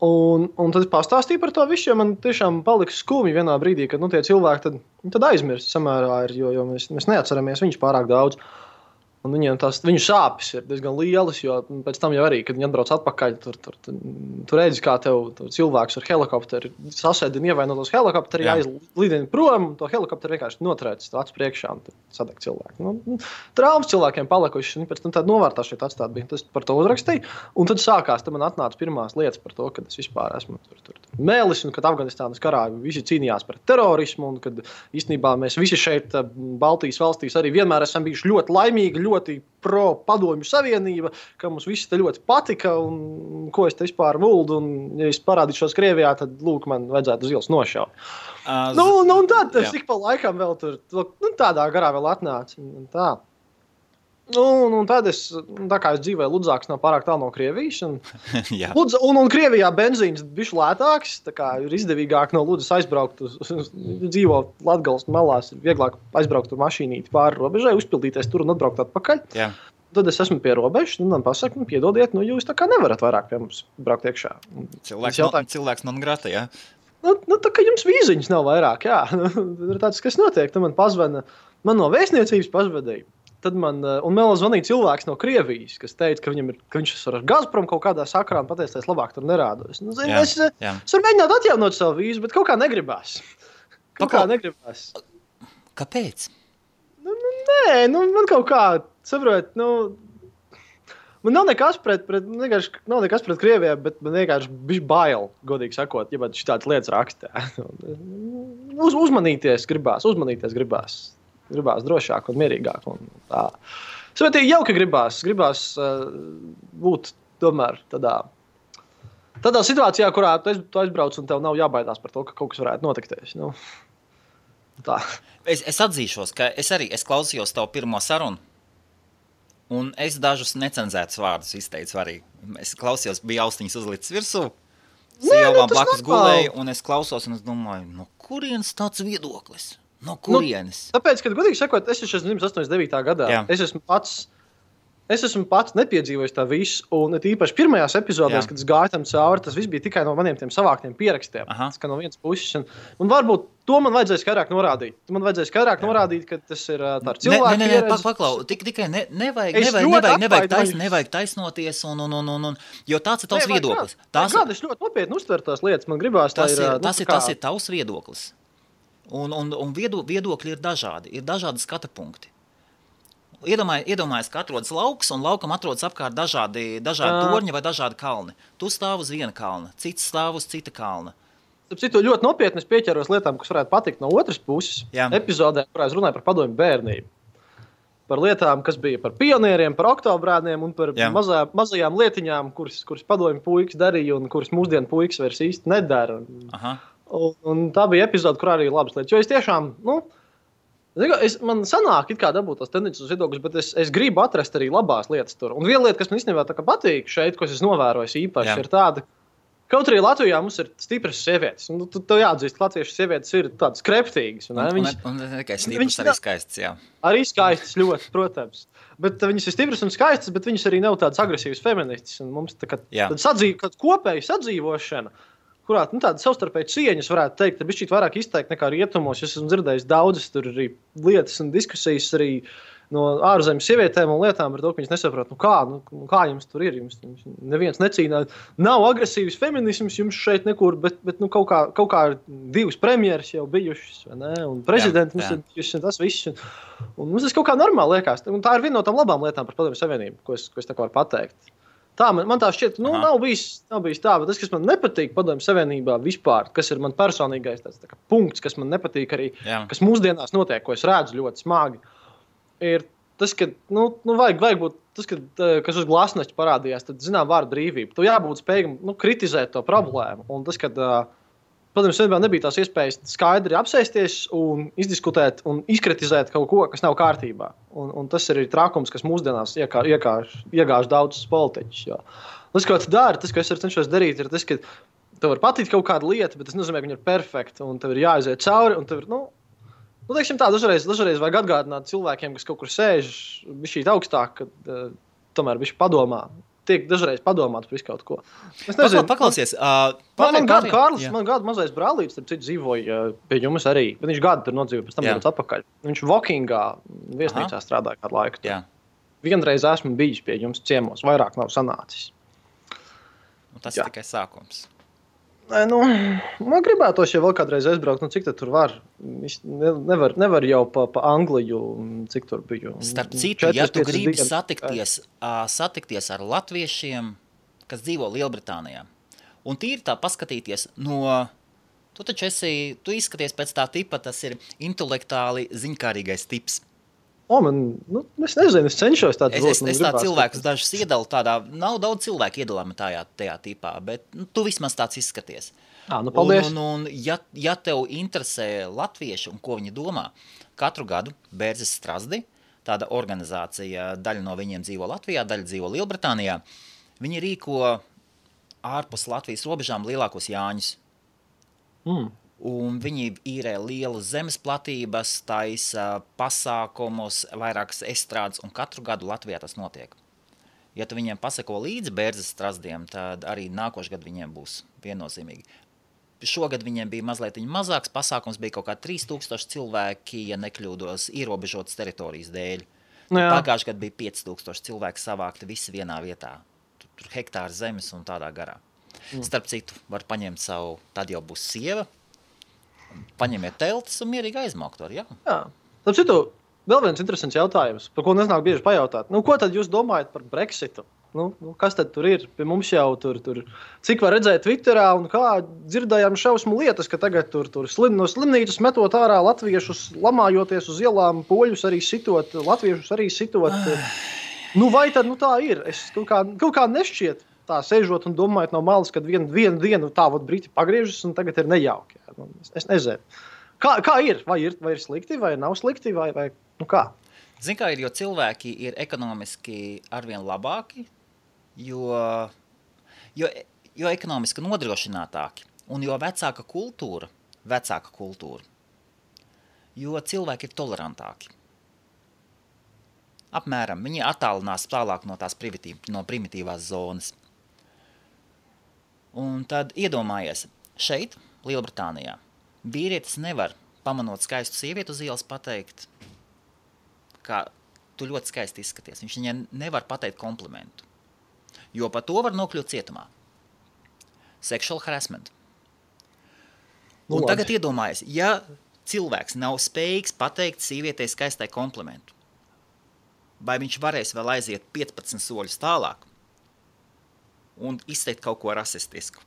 Un tad es pastāstīju par to visu, jo man tiešām palika skumji vienā brīdī, kad tie cilvēki tad aizmirst samērā ir, jo mēs neatceramies viņus pārāk daudz. Un viņu sāpes ir diezgan lielas, jo pēc tam jau arī, kad viņi atbrauc atpakaļ, tur redzi, kā tev cilvēks ar helikopteri sasēdina ievainotos helikopteri, aizlidina prom, to helikopteri vienkārši notrēc acu priekšā un sadeg cilvēku. Traumas cilvēkiem palikuši, un pēc tam tāda novārtā šeit atstāt bija. Tas par to uzrakstīju, un tad sākās, tad man atnāca pirmās lietas par to, kad es vispār esmu tur mēlis, un kad Afganistānas karā visi cīnījās pret terorismu, un kad īstenībā mēs visi šeit Baltijas valstīs arī vienmēr esam bijuši ļoti laimīgi, ļoti pro padomju savienība, ka mums visi te ļoti patika un ko es te vispār vuldu. Un, ja es parādīšos Krievijā, tad, lūk, man vajadzētu uz ielas nošaut. Un tad ik pa laikam vēl tur tādā garā vēl atnāca. Tā. Un tad tā kā es dzīvoju Ludzāks nav pārāk tālu no Krievijas, un Krievijā benzīns bišķi lētāks, tā kā ir izdevīgāk no Ludzas aizbraukt dzīvo Latgales malās, ir vieglāk aizbraukt ar mašīnīti pāri robežai, uzpildīties tur un atbraukt atpakaļ. Jā. Tad es esmu pie robežas, un man pasaka, piedodiet, jūs tā kā nevarat vairāk pie mums braukt iekšā. Cilvēks non grata, jā? Tā kā jums vīziņas nav vairāk, jā. Ir tāds, kas notiek, tad man pazvana, man no vēstniecības pazvadīja. Tad man zvanīja cilvēks no Krievijas, kas teica, ka viņš ar Gazprom kaut kādā sakarā un pateica, es labāk tur nerādos. Es varu mēģināt atjaunot savu vīzu, bet kaut kā negribās. Kāpēc? Man kaut kā, saprot, man nav nekas pret Krievijā, bet man vienkārši bišķi bail, godīgi sakot, ja man šitādas lietas rakstā. Uzmanīties gribās. Gribās drošāk un mierīgāk. Un tā. Svētīgi jauki gribās būt tomēr tādā situācijā, kurā tu aizbrauc un tev nav jābaidās par to, ka kaut kas varētu notikties. Tā. Es atzīšos, ka es klausījos tavu pirmo sarunu, un es dažus necenzētus vārdus izteicu arī. Es klausījos, bija austiņas uzlicis virsū, sievām blakus gulēju, un es klausos, un es domāju, no kurienes tāds viedoklis? No kurienes? Tāpēc, kad godīgi sakot, es esmu dzimis 89. gadā. Jā. Es esmu pats nepiedzīvojis tā visu, un īpaši pirmajās epizodēs, kad es gāju tam cauri, tas viss bija tikai no maniem tiem savāktiem pierakstiem. Tas kā no vienas puses. Un varbūt to man vajadzēja skaidrāk norādīt. Man vajadzēja skaidrāk norādīt, ka tas ir tā ar cilvēku pieredzi. Paklau, tikai nevajag taisnoties, jo tāds ir tavs viedoklis. Es ļoti nopietni uztveru tās lietas. Man gribās, tas ir tavs viedoklis. Un viedokļi ir dažādi skata punkti. Iedomājies, ka atrodas lauks, un laukam atrodas apkārt dažādi torņi vai dažādi kalni. Tu stāv uz viena kalna, cits stāv uz cita kalna. Citu ļoti nopietni es pieķeros lietām, kas varētu patikt no otras puses. Epizodē, kurā es runāju par padomju bērnību. Par lietām, kas bija par pionieriem, par oktobrēniem un par mazajām lietiņām, kuras padomju puikas darīja un kuras mūsdienu puikas vairs īsti nedara. Un tā bija epizode, kur arī ir labas lietas. Jo es tiešām, man sanāk it kā dabūt tās tendences viedokļus, bet es gribu atrast arī labās lietas tur. Un viena lieta, kas man īstenībā tā kā patīk šeit, ko es novēroju īpaši, ir tāda, kaut arī Latvijā mums ir stipras sievietes. Tu jāatzīst, ka latviešu sievietes ir tādas kreptīgas. Un tikai stipras, arī skaistas, jā. Arī skaistas ļoti, protams. Bet viņas ir stipras un skaistas, bet viņas arī nav tādas agresīvas feministas. Un mums tāda kopēja sadzīvošana, kurā tāda savstarpēja cieņas varētu teikt, ka bišķīt vairāk izteikt nekā rietumos. Es esmu dzirdējis daudzas tur arī lietas un diskusijas arī no ārzemes sievietēm un lietām par to, ka viņas nesaprot, kā jums tur ir. Jums neviens necīnās. Nav agresīvs feminisms jums šeit nekur, bet kaut kā divas premjeras jau bijušas, vai ne? Un prezidenti mums ir bijuši tas viss. Un mums tas kaut kā normāli liekas. Un tā ir viena no tām labām lietām par Padomju Savienību, ko es tā kā varu pateikt. Tā, man tā šķiet, nav bijis tā, bet tas, kas man nepatīk Padomju Savienībā vispār, kas ir man personīgais tāds tā kā punkts, kas man nepatīk arī, kas mūsdienās notiek, ko es redzu ļoti smagi, ir tas, ka, vajag būt tas, kas uz glasneķa parādījās, tad, vārdu brīvība. Tu jābūt spējīgam, kritizēt to problēmu. Un tas, kad Padomju Savienībā nebija tās iespējas skaidri apsēsties un izdiskutēt un izkritizēt kaut ko, kas nav kārtībā. Un tas ir trākums, kas mūsdienās iegāž daudzas politiķus. Tas, ko tu dari, tas, ko es cenšos darīt, ir tas, ka tev var patikt kaut kāda lieta, bet tas nozīmē, ka viņa ir perfekta un tev ir jāaiziet cauri. Un tev ir, teiksim tā, dažreiz vajag atgādināt cilvēkiem, kas kaut kur sēž bišķīt augstāk, kad tomēr bišķi padomā. Tiek dažreiz padomāts par visu kaut ko. Es nezinu. Paklausies. Man gadu mazais brālītis, starp citu, dzīvoja pie jums arī. Bet viņš gadu tur nodzīvoja, pēc tam dodas atpakaļ. Viņš Vokingā viesnīcā strādāja kādu laiku. Vienreiz esmu bijis pie jums ciemos, vairāk nav sanācis. Tas ir tikai sākums. Man gribētos, ja vēl kādreiz aizbraukt, cik tad tur var? Nevar jau pa Angliju, cik tur biju. Starp citu, ja tu gribi satikties ar latviešiem, kas dzīvo Lielbritānijā, un tīri tā paskatīties tu izskaties pēc tā tipa, tas ir intelektuāli ziņkārīgais tips. Es nezinu, es cenšos tādu es tā cilvēkus dažus iedalu tādā, nav daudz cilvēku iedalāmi tajā tipā, bet tu vismaz tāds izskaties. Paldies. Un ja tev interesē latvieši un ko viņi domā, katru gadu Bērzes Strazdi, tāda organizācija, daļa no viņiem dzīvo Latvijā, daļa dzīvo Lielbritānijā, viņi rīko ārpus Latvijas robežām lielākos Jāņus. Un viņi īrē lielas zemes platības, taisa pasākumus, vairākas estrādes, un katru gadu Latvijā tas notiek. Ja tu viņiem pasako līdzi Bērzes Strazdiem, tad arī nākošais gadu viņiem būs viennozīmīgi. Šogad viņiem bija mazliet mazāks pasākums, bija kaut kā 3000 cilvēki, ja nekļūdos, ierobežotas teritorijas dēļ. Pagājušajā gadā bija 5000 cilvēki savākti visi vienā vietā. Tur hektāri zemes un tādā garā. Starp citu, var paņemt savu, tad jau būs sieva, paņemiet teltis un mierīgi aizmaukt var, jā. Starp citu, vēl viens interesants jautājums, par ko neznāk bieži pajautāt. Ko tad jūs domājat par Brexitu? Kas tad tur ir? Pie mums jau tur cik var redzēt Twitterā un kā dzirdējām šausmu lietas, ka tagad tur no slimnīcas metot ārā latviešus, lamājoties uz ielām, poļus arī sitot, latviešus arī sitot. Vai tad tā ir? Es kaut kā nešķiet tā sēžot un domājot no malas, kad vienu dienu tā briti pagriežas un tagad ir nejauki. Es nezinu. Kā ir? Vai ir slikti, vai nav slikti, vai kā? Zini, kā ir, jo cilvēki ir ekonomiski arvien labāki, jo ekonomiski nodrošinātāki un jo vecāka kultūra, jo cilvēki ir tolerantāki. Apmēram, viņi attālinās tālāk no tās primitīvās zonas. Un tad iedomājies, šeit, Lielbritānijā, vīrietis nevar, pamanot skaistu sievieti uz ielas, pateikt, ka tu ļoti skaisti izskaties. Viņš viņai nevar pateikt komplimentu, jo par to var nokļūt cietumā. Sexual harassment. Un tagad iedomājies, ja cilvēks nav spējīgs pateikt sievietei skaistai komplimentu, vai viņš varēs vēl aiziet 15 soļus tālāk un izteikt kaut ko rasistisku?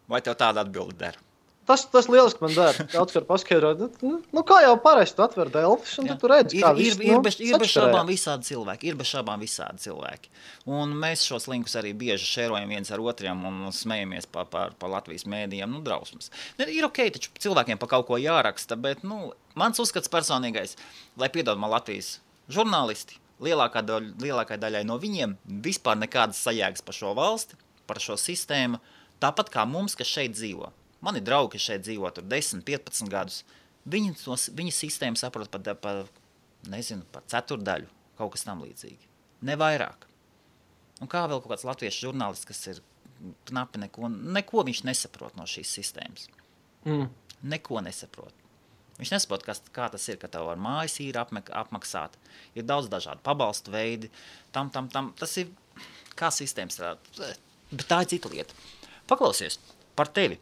Vai tev tāda atbilde der? Tas lieliski man der. Daudz var paskaidrot. Kā jau parasti tu atver Delfis un tu redzi, kā viss ir bez šaubām visādi cilvēki. Un mēs šos linkus arī bieži šērojam viens ar otriem un smejamies par Latvijas mēdījiem, drausmas. Ir ok, taču cilvēkiem pa kaut ko jāraksta, bet, mans uzskats personīgais, lai piedod man Latvijas žurnālisti, lielākai daļai no viņiem vispār nekādas sajēgas par šo valsti, par šo sistēmu, tāpat kā mums, kas šeit dzīvo. Mani draugi, kas šeit dzīvo tur 10, 15 gadus, viņi sistēmu saprot par ceturdaļu, kaut kas tam līdzīgi. Ne vairāk. Un kā vēl kaut kāds latviešu žurnālists, kas ir knapi neko viņš nesaprot no šīs sistēmas. Neko nesaprot. Viņš nesaprot, kā tas ir, ka tev ar mājas ir apmaksāt. Ir daudz dažādu pabalstu veidi. Tas ir kā sistēmas strādā. Bet tā ir cita lieta. Paklausies par tevi.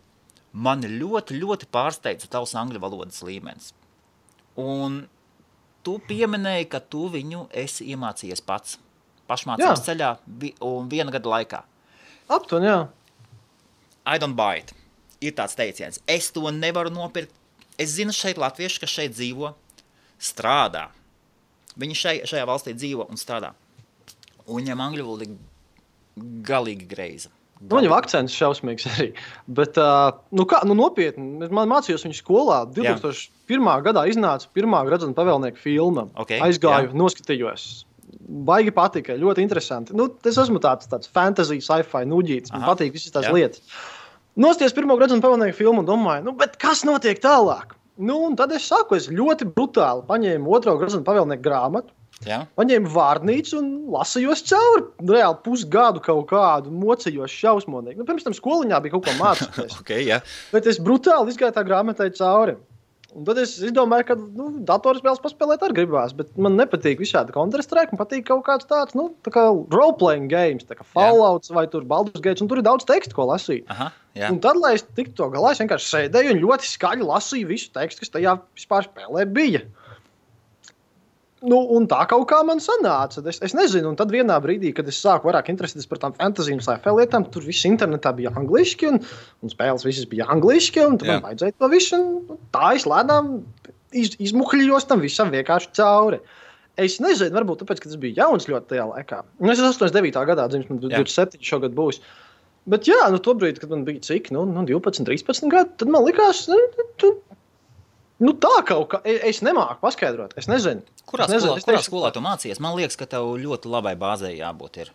Mani ļoti, ļoti pārsteidza tavs angļu valodas līmenis. Un tu pieminēji, ka tu viņu esi iemācījies pats. Pašmācības ceļā un 1 gada laikā. Aptuveni, jā. I don't buy it. Ir tāds teiciens. Es to nevaru nopirkt. Es zinu šeit latvieši, kas šeit dzīvo, strādā. Viņi šajā valstī dzīvo un strādā. Un viņam angļu valoda galīgi greiza. Viņam akcents šausmīgs arī. Bet, nopietni, man mācījos viņu skolā. 2001. gadā iznāca pirmā Gradzena pavēlnieka filma. Aizgāju, noskatījos. Baigi patika, ļoti interesanti. Es esmu tāds fantasy, sci-fi nuģītis. Man patīk visas tās lietas. Nostties pirmo Gradzena pavēlnieka filmu un domāju, bet kas notiek tālāk? Un tad es ļoti brutāli paņēmu 2. Gradzena pavēlnieka grāmatu. Paņēmu vārnīcu un lasījos cauri. Reāli pusgadu kaut kādu mocījos šausmonīgi. Pirms tam skoliņā bija kaut ko mācīties. Bet es brutāli izgāju tā grāmatai cauri. Un tad es domāju, ka datorspēles paspēlēt arī gribās. Bet man nepatīk visādi Counter-Strike. Man patīk kaut kāds tāds, tā kā role-playing games, tā kā Fallouts vai tur Baldur's Gate. Un tur ir daudz tekstu, ko lasīt. Un tad, lai es tiktu to galā, es vienkārši sēdēju un ļoti skaļi lasīju visu tekstu, kas tajā vispār spēlē bija. Un tā kaut kā man sanāca. Es nezinu, un tad vienā brīdī, kad es sāku vairāk interesēties par tām fantasy un sci-fi lietām, tur viss internetā bija angliski, un spēles visas bija angliski, un tad man vajadzēja to visu, un tā es lēnām izmuhļos tam visam vienkārši cauri. Es nezinu, varbūt tāpēc, ka tas bija jauns ļoti tajā laikā. Es esmu 89. gadā dzimis, man 27 šogad būs. Bet jā, tobrīd, kad man bija cik, 12, 13 gadi, tad man likās, tā kaut kā, es nemāku paskaidrot, es nezinu. Kurā skolā tu mācījies? Man liekas, ka tev ļoti labai bāzei jābūt ir.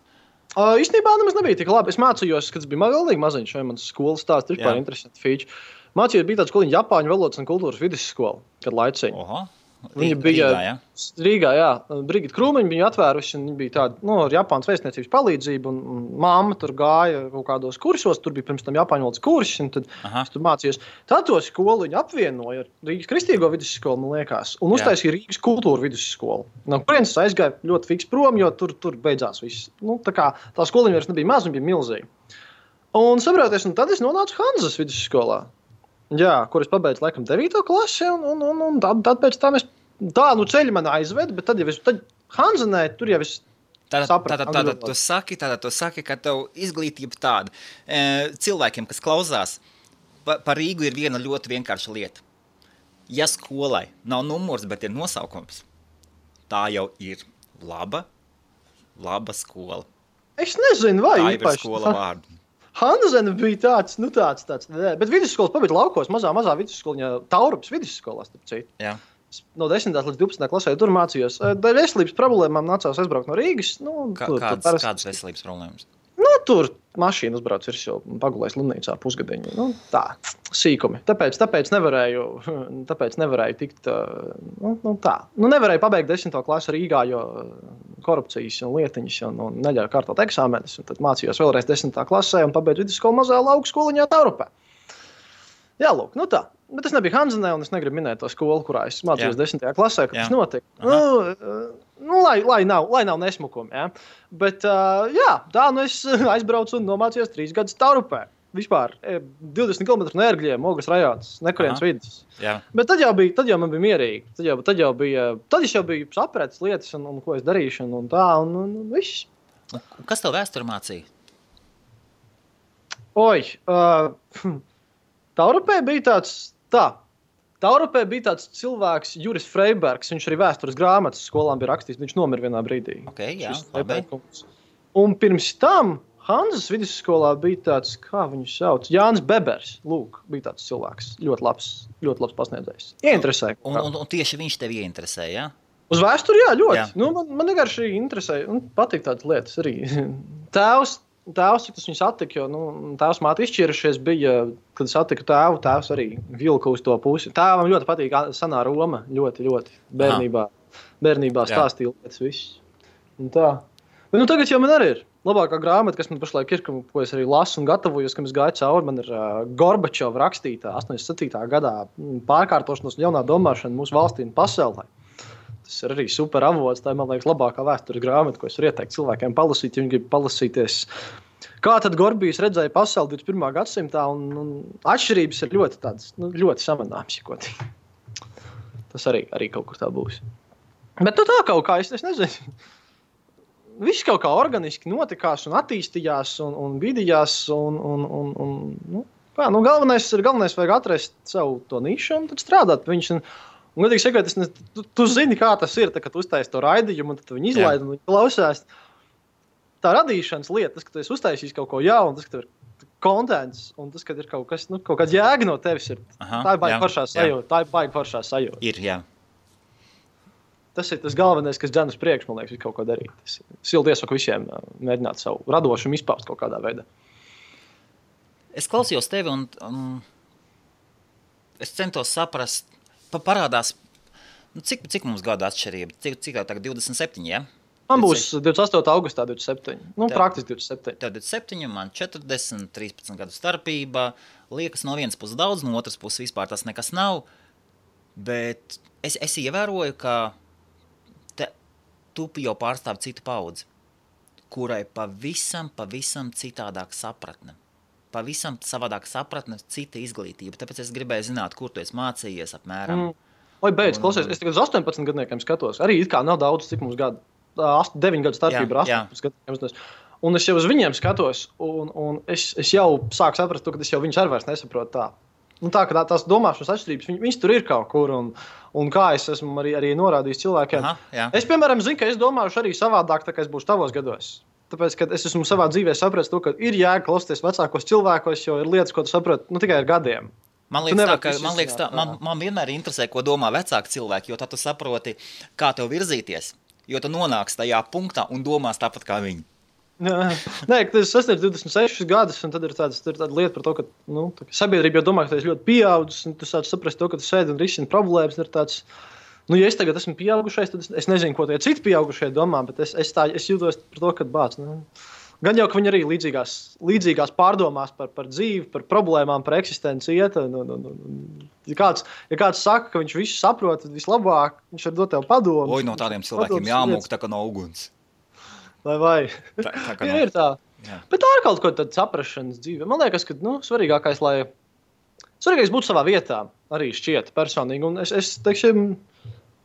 Īstenībā nemaz nebija tik labi. Es mācījos, kad es biju galīgi maziņš, vai mans skolas stāsts ir par interesantu fīču. Mācījos, bija tāda skoliņa Japāņu valodas un kultūras vidusskola, kad laiciņa. Viņa bija Rīgā, jā. Brigita Krūmiņa bija atvērusi, un viņa bija tāda, ar Japānas vēstniecības palīdzību, un mamma tur gāja kaut kādos kursos, tur bija pirms tam Japāņu valodas kursi, un tad es tur mācījos. Tad to skolu viņa apvienoja ar Rīgas Kristīgo vidusskolu, man liekas, un uztaisīja Rīgas kultūra vidusskolu. No kurienes es aizgāju ļoti fiks prom, jo tur beidzās viss. Tā skoliņa vairs nebija maz, viņa bija milzīga. Un saproties, un tad es nonācu Hanzas vidusskolā. Jā, kur es pabeidzu laikam 9. klasi, un tad pēc tam ceļi man aizved, bet tad Hanzanē tur jau es sapratu. Tātad tu saki, ka tev izglītība tāda. Cilvēkiem, kas klausās, par Rīgu ir viena ļoti vienkārša lieta. Ja skolai nav numurs, bet ir nosaukums, tā jau ir laba skola. Es nezinu, vai tā ir skola vārdu. Hanzene bija tāds, bet vidusskolas pabeidz laukos, mazā vidusskoliņā, Taurupas vidusskolās, starp citu. Jā. No 10. līdz 12. klasē tur mācījos. Dēļ veselības problēmām nācās aizbraukt no Rīgas. Kādas veselības problēmas? Tur mašīna uzbrauc virsū, pagulēs slimnīcā pusgadiņu. Tā, sīkumi. Tāpēc nevarēju tikt, tā. Nevarēju pabeigt 10. klasi Rīgā, jo korupcijas un lietiņas un neļauju kārtot eksāmenes. Un tad mācījos vēlreiz 10. klasē un pabeidzu vidusskolu mazā lauku skoliņā Taurupē. Jā, lūk, tā. Bet es nebiju Hanzanē, un es negribu minēt to skolu, kurā es mācījos 10. klasē, kad tas notika. Lai nav nesmukumi, jā. Bet, es aizbraucu un nomācījos 3 gadus Taurupē. Vispār 20 km no Ērgļiem, Ogres rajons, nekurienes vidus. Jā. Bet tad jau man bija mierīgi. Tad es jau biju sapratis lietas, un ko es darīšu, un tā, un viss. Kas tev vēsturi mācīja? Taurupē bija tāds cilvēks, Juris Freibergs, viņš arī vēstures grāmatas skolām bija rakstījis, viņš nomira vienā brīdī. Un pirms tam Hanzas vidusskolā bija tāds, kā viņu sauc, Jānis Bebers, lūk, bija tāds cilvēks, ļoti labs pasniedzējs. Ieinteresēja. Un tieši viņš tevi ieinteresēja, jā? Uz vēsturi, jā, ļoti. Jā. Man vienkārši interesēja, un patīk tādas lietas arī. Tēvs, tas viņu satika, jo tēvs māte izšķirušies bija, kad satika tēvu, tēvs arī vilka uz to pusi. Tēvam ļoti patīk senā Roma, ļoti bērnībā stāstīja lietas viss. Un tā. Bet tagad jau man arī ir labākā grāmata, kas man pašlaik ir, ko es arī lasu un gatavojos, kad es gāju cauri. Man ir Gorbačova rakstītā 87. gadā pārkārtošanos un jaunā domāšana mūsu valstī un pasaulē. Tas ir arī super avots, tā ir, man liekas, labākā vēstures grāmata, ko es varu ieteikt cilvēkiem palasīt, ja viņi grib palasīties. Kā tad Gorbijs redzēja pasauli 21. gadsimtā, un atšķirības ir ļoti tādas, ļoti samanāmas, jokotīgi. Tas arī kaut kur tā būs. Bet tā kaut kā, es nezinu. Viss kaut kā organiski notikās un attīstījās un vidījās, galvenais vajag atrast savu to nišu un tad strādāt pie viņus. Un, godīgi sakot, tu zini, kā tas ir, kad tu uztaisi to raidījumu, un tad viņi izlaid un viņi klausās. Tā radīšanas lieta, tas, ka tu esi uztaisījis kaut ko jaunu, tas, ka tev ir kontents, un tas, ka ir kaut kas, kaut kāds jēga no tevis ir. Tā ir baigi foršā sajūta. Ir, jā. Tas ir tas galvenais, kas dzen uz priekšu, man liekas, kaut ko darīt. Es silti iesaku visiem mēģināt savu radošumu izpaust kaut kādā veidā. Es klausījos tevi, un es centos saprast, parādās, cik mums gada atšķirība? Cik tā tagad 27, ja? Man būs 28. augustā 27. Praktiski 27. Tev 27, man 40, 13 gadu starpība. Liekas no vienas puses daudz, no otras puses vispār tas nekas nav. Bet es ievēroju, ka tu jau pārstāv citu paudzi, kurai pavisam citādāk sapratne. Pavisam savādāk sapratne, cita izglītība. Tāpēc es gribēju zināt, kur tu esi mācījies apmēram. Beidz, klausies, es tagad uz 18 gadniekiem skatos. Arī it kā nav daudz, cik mums gadu. 9 gadu starpība ar 18 gadniekiem. Un es jau uz viņiem skatos, un es jau sāku saprast to, ka es jau viņus arī vairs nesaprotu tā. tā, ka tās domāšanas atšķirības, viņas tur ir kaut kur, un kā es esmu arī norādījis cilvēkiem. Es, piemēram, zinu, ka es domāšu arī savādāk, tā kā es būšu tavos gados. Tāpēc, ka es esmu savā dzīvē sapratis to, ka ir jēga klausīties vecākos cilvēkos, jo ir lietas, ko tu saproti, tikai ar gadiem. Man liekas, man vienmēr interesē, ko domā vecāki cilvēki, jo tad tu saproti, kā tev virzīties, jo tu nonāks tajā punktā un domās tāpat kā viņi. Nē, tas sasniedz 26 gadus, un tad ir tāda lieta par to, ka sabiedrība jau domā, ka tu esi ļoti pieaudzis, un tu sāc saprast to, ka tu sēdi un risini problēmas. Ir tāds, ja es tagad esmu pieaugušais, tad es nezinu, ko tie citi pieaugušie domā, bet es jūtos par to, ka bāc. Gan jau, ka viņi arī līdzīgās pārdomās par dzīvi, par problēmām, par eksistenci iet. Ja kāds saka, ka viņš visu saprot, tad vislabāk viņš var dot tev padomus. No tādiem cilvēkiem jāmūk tā kā no uguns. Vai? Tā ir tā. Jā. Bet tā ir kaut ko tāda saprašanas dzīve. Man liekas, ka svarīgākais būtu savā vietā arī šķiet personīgi. Un es teiksim,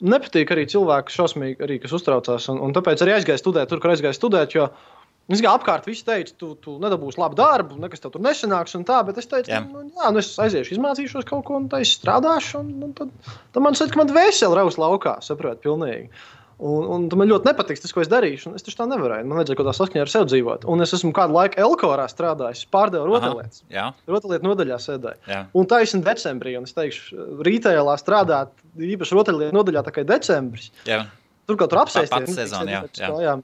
nepatīk arī cilvēki šausmīgi, arī, kas uztraucās. Un tāpēc arī aizgāju studēt tur, kur aizgāju studēt, jo apkārt visi teica, tu nedabūsi labu darbu, nekas tev tur nesanāks un tā, bet es teicu, es aiziešu, izmācīšos kaut ko, un tā es strādāšu, un tad man saka, ka man dvēseli raus laukā, saprot, pilnīgi. Un man ļoti nepatiks tas, ko es darīšu, un es taču tā nevarēju. Man vajadzēja kaut tā saskaņā ar sevi dzīvot. Un es esmu kādu laiku Elkorā strādājis, pārdevu rotaļlietas. Rotaļlietu nodaļā sēdēju. Un taisni decembrī, un es teikšu, rītēlā strādāt īpaši rotaļlietu nodaļā tā kā decembris. Tur kaut tur apsēsties. Pats sezona,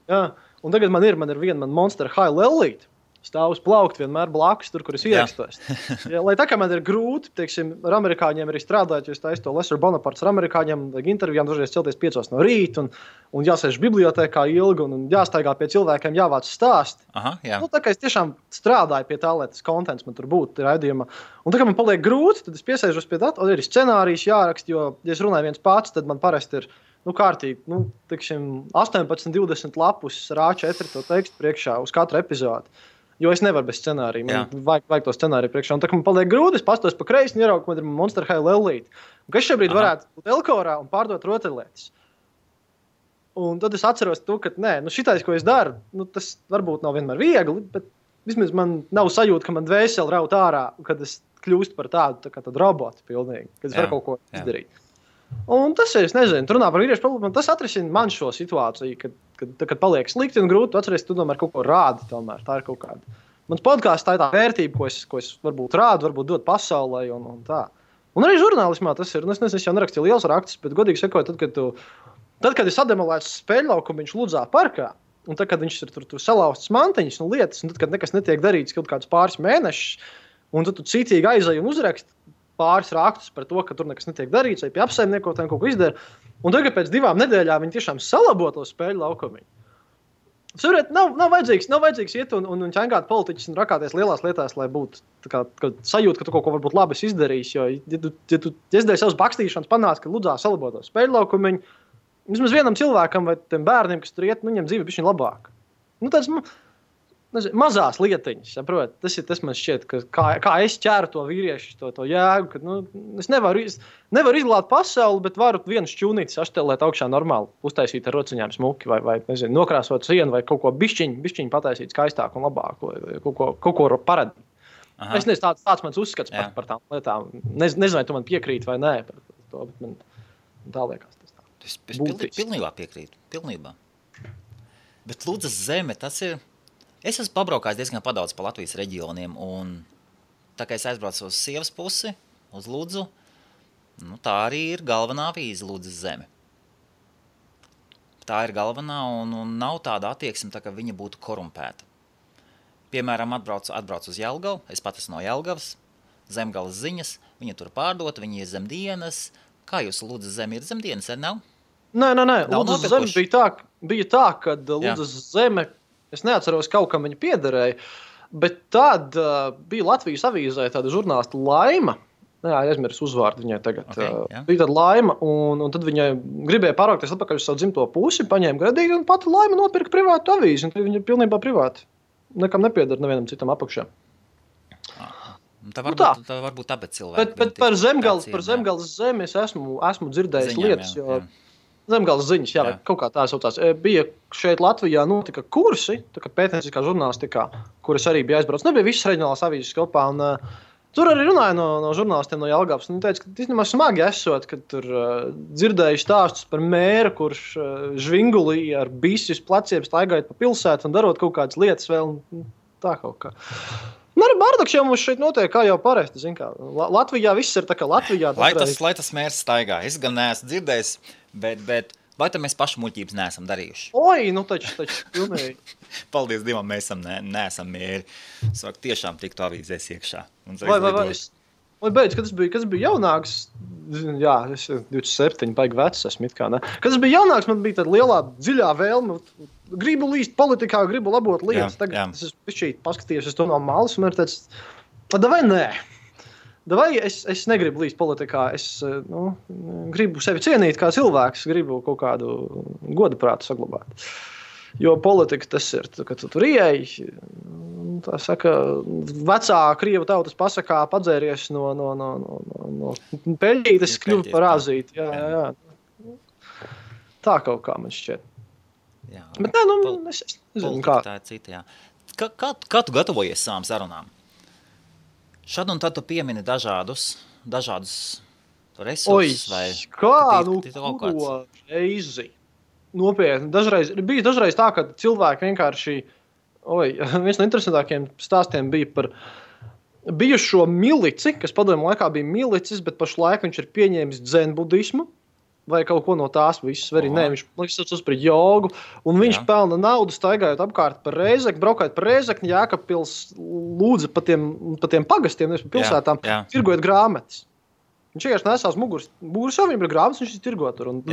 jā. Un tagad man ir viena Monster High lellīte. Stāv uz plaukta vienmēr blakus, tur, kur es ierakstos. Lai tā kā man ir grūti, teiksim, ar amerikāņiem arī strādāt, jo es taisu to Lesser Bonapartes ar amerikāņiem, vajag intervijām dažreiz celties 5 no rīta, un jāsēž bibliotēkā ilgi, un jāstaigā pie cilvēkiem, jāvāc stāst. Tā kā es tiešām strādāju pie tā, lai tas kontents man tur būtu raidījumā. Un tā kā man paliek grūti, tad es piesēžos pie tā, un ir scenārijs jāraksta, jo, ja es runāju viens pats, tad man parasti ir kārtīgi, 18-20 lapus ar A4 to tekstu priekšā uz katru epizodi. Jo es nevaru bez scenārija. Man vajag to scenāriju priekšā. Un tā, ka man paliek grūti, es pastos pa kreisi un ieraugu, ka man ir Monster High lellīte. Un kas šobrīd varētu būt Elkorā un pārdot rotaļlietas. Un tad es atceros to, ka šitais, ko es daru, tas varbūt nav vienmēr viegli, bet vismaz man nav sajūta, ka man dvēseli raut ārā, kad es kļūstu par tādu robotu pilnīgi, kad es varu kaut ko izdarīt. Un tas ir, es nezinu, runā par vīriešu problēmu, tas atrisina man šo situāciju, kad paliek slikti un grūti, atceries, tu tomēr kaut ko rādi tomēr, tā ir kaut kāda. Mans podcasts tā ir tā vērtība, ko es varbūt rādu, varbūt dot pasaulē un tā. Un arī žurnālismā tas ir, es jau nerakstīju liels rakstus, bet godīgi sakot, tad, kad es sademolēju spēļlaukumu viņš Ludzā parkā, un tad, kad viņš ir tur salauztas mantiņas un lietas, un tad, kad nekas netiek darīts kaut kādus pāris mēnešus, un tad tu cītīgi aizēji un uzraksti pāris rakstus par to, ka tur nekas netiek darīts, vai pie apsaimniekotājiem kaut ko izdara. Un tagad pēc 2 nedēļām viņi tiešām salabo to spēļu laukumu. Saprotiet, nav vajadzīgs iet un ķengāt politiķus un rakāties lielās lietās, lai būtu sajūta, ka tu kaut ko varbūt labi izdarījis. Jo, ja tu izdēji savus bakstīšanas, panāc, ka Ludzā salabo to spēļu laukumu, vismaz vienam cilvēkam vai tiem bērniem, kas tur iet, viņam dzīve bišķiņ labāk. Tāds, mazās lietiņas, saprot? Tas man šķiet, kā es ķēru to vīriešu, to jēgu, ka es nevaru izglābt pasauli, bet varu vienu šķūnīti saštelēt augšā normāli, uztaisīt ar rociņām smuki vai nezinu, nokrāsot sienu vai kaut ko bišķiņ pataisīt skaistāku un labāku, vai kaut ko paradīt. Es nezinu, tāds mans uzskats par tām lietām. Nezinu, vai tu man piekrīti vai nē par to, bet man tā liekas. Es pilnībā piekrītu, pilnībā. Bet Ludzas zeme, tas ir... Es esmu pabraukājis diezgan padaudz pa Latvijas reģioniem, un tā kā es aizbraucu uz sievas pusi, uz Ludzu, tā arī ir galvenā vīze Ludzas zeme. Tā ir galvenā, un nav tāda attieksme, tā, ka viņa būtu korumpēta. Piemēram, atbraucu uz Jelgavu, es pat esmu no Jelgavas, Zemgales ziņas, viņa tur pārdota, viņa ir zemdienas. Kā jūs Ludzas zeme ir zemdienas, nav? Nē. Ludzas zeme bija tā, kad Ludzas zeme... Es neatceros, kaut kam viņa piederēja, bet tad bija Latvijas avīzē tāda žurnālista Laima. Aizmirsu uzvārdu viņai tagad. Bija tāda Laima, un tad viņa gribēja pārvākties atpakaļ uz savu dzimto pusi, paņēma gradīgi, un pati Laima nopirka privātu avīzi, un viņa ir pilnībā privāti. Nekam nepieder nevienam citam apakšā. Tā varbūt tāpēc cilvēki. Bet par Zemgales zemi es esmu dzirdējis lietas, jo... Zemgales ziņas, vai kaut kā tā saucās. Bija šeit Latvijā notika kursi, tā kā pētnieciskā žurnālistikā, kuras arī bija aizbrauc. Nebija visas reģionālās avīzes kopā, un Tur arī runāja no žurnālistiem no Jelgavas. Viņi teica, ka īstenībā smagi esot, kad tur dzirdēju stāstus par mēru, kurš žvingulī ar bisi uz pleciem staigājot pa pilsētu un darot kaut kādas lietas vēl. Tā kaut kā. Bardaks jau mums šeit notiek, kā jau parasti. Latvijā viss ir tā kā Latvijā. Lai tas mērs staigā. Es gan neesmu dzirdējis, bet vai tad mēs pašu muļķības neesam darījuši? Oi, taču pilnīgi. Paldies Dievam, mēs neesam mēri. Sāk tiešām tiktu avīzēs iekšā. Vai beidz, kad es biju jaunāks, jā, es 27, baigi vecs esmu it kā, ne? Kad es biju jaunāks, man bija tāda lielā, dziļā vēlme, gribu līst politikā, gribu labot lietas. Tagad es esmu paskatījies uz to no malas, un man ir tāds, vai nē? Vai es negribu līst politikā, es gribu sevi cienīt kā cilvēks, gribu kaut kādu godaprātu saglabāt. Jo politika tas ir, kad tu tur ieeji, tā saka, vecā krievu tautas pasakā padzēries no peļķītes kļuva par azīti. Jā. Tā kaut kā man šķiet. Jā. Bet es nezinu, kā. Tā ir cita, jā. Kā tu gatavojies savām sarunām? Šad un tad tu piemini dažādus resursus vai... Ko reizi? Nopietni. Bija dažreiz tā, ka cilvēki vienkārši... viens no interesantākiem stāstiem bija par bijušo milici, kas padomju laikā bija milicis, bet pašlaik viņš ir pieņēmis dzenbudismu vai kaut ko no tās visas. Viņš saucas par jogu, un viņš pelna naudu staigājot apkārt par Rēzekni, braukājot par Rēzekni, Jēkabpils lūdza pa tiem pagastiem, nevis pa pilsētām, tirgojot grāmatas. Viņš vienkārši nesās muguras jau viņam ir grāmatas, viņš ir tirgotur, un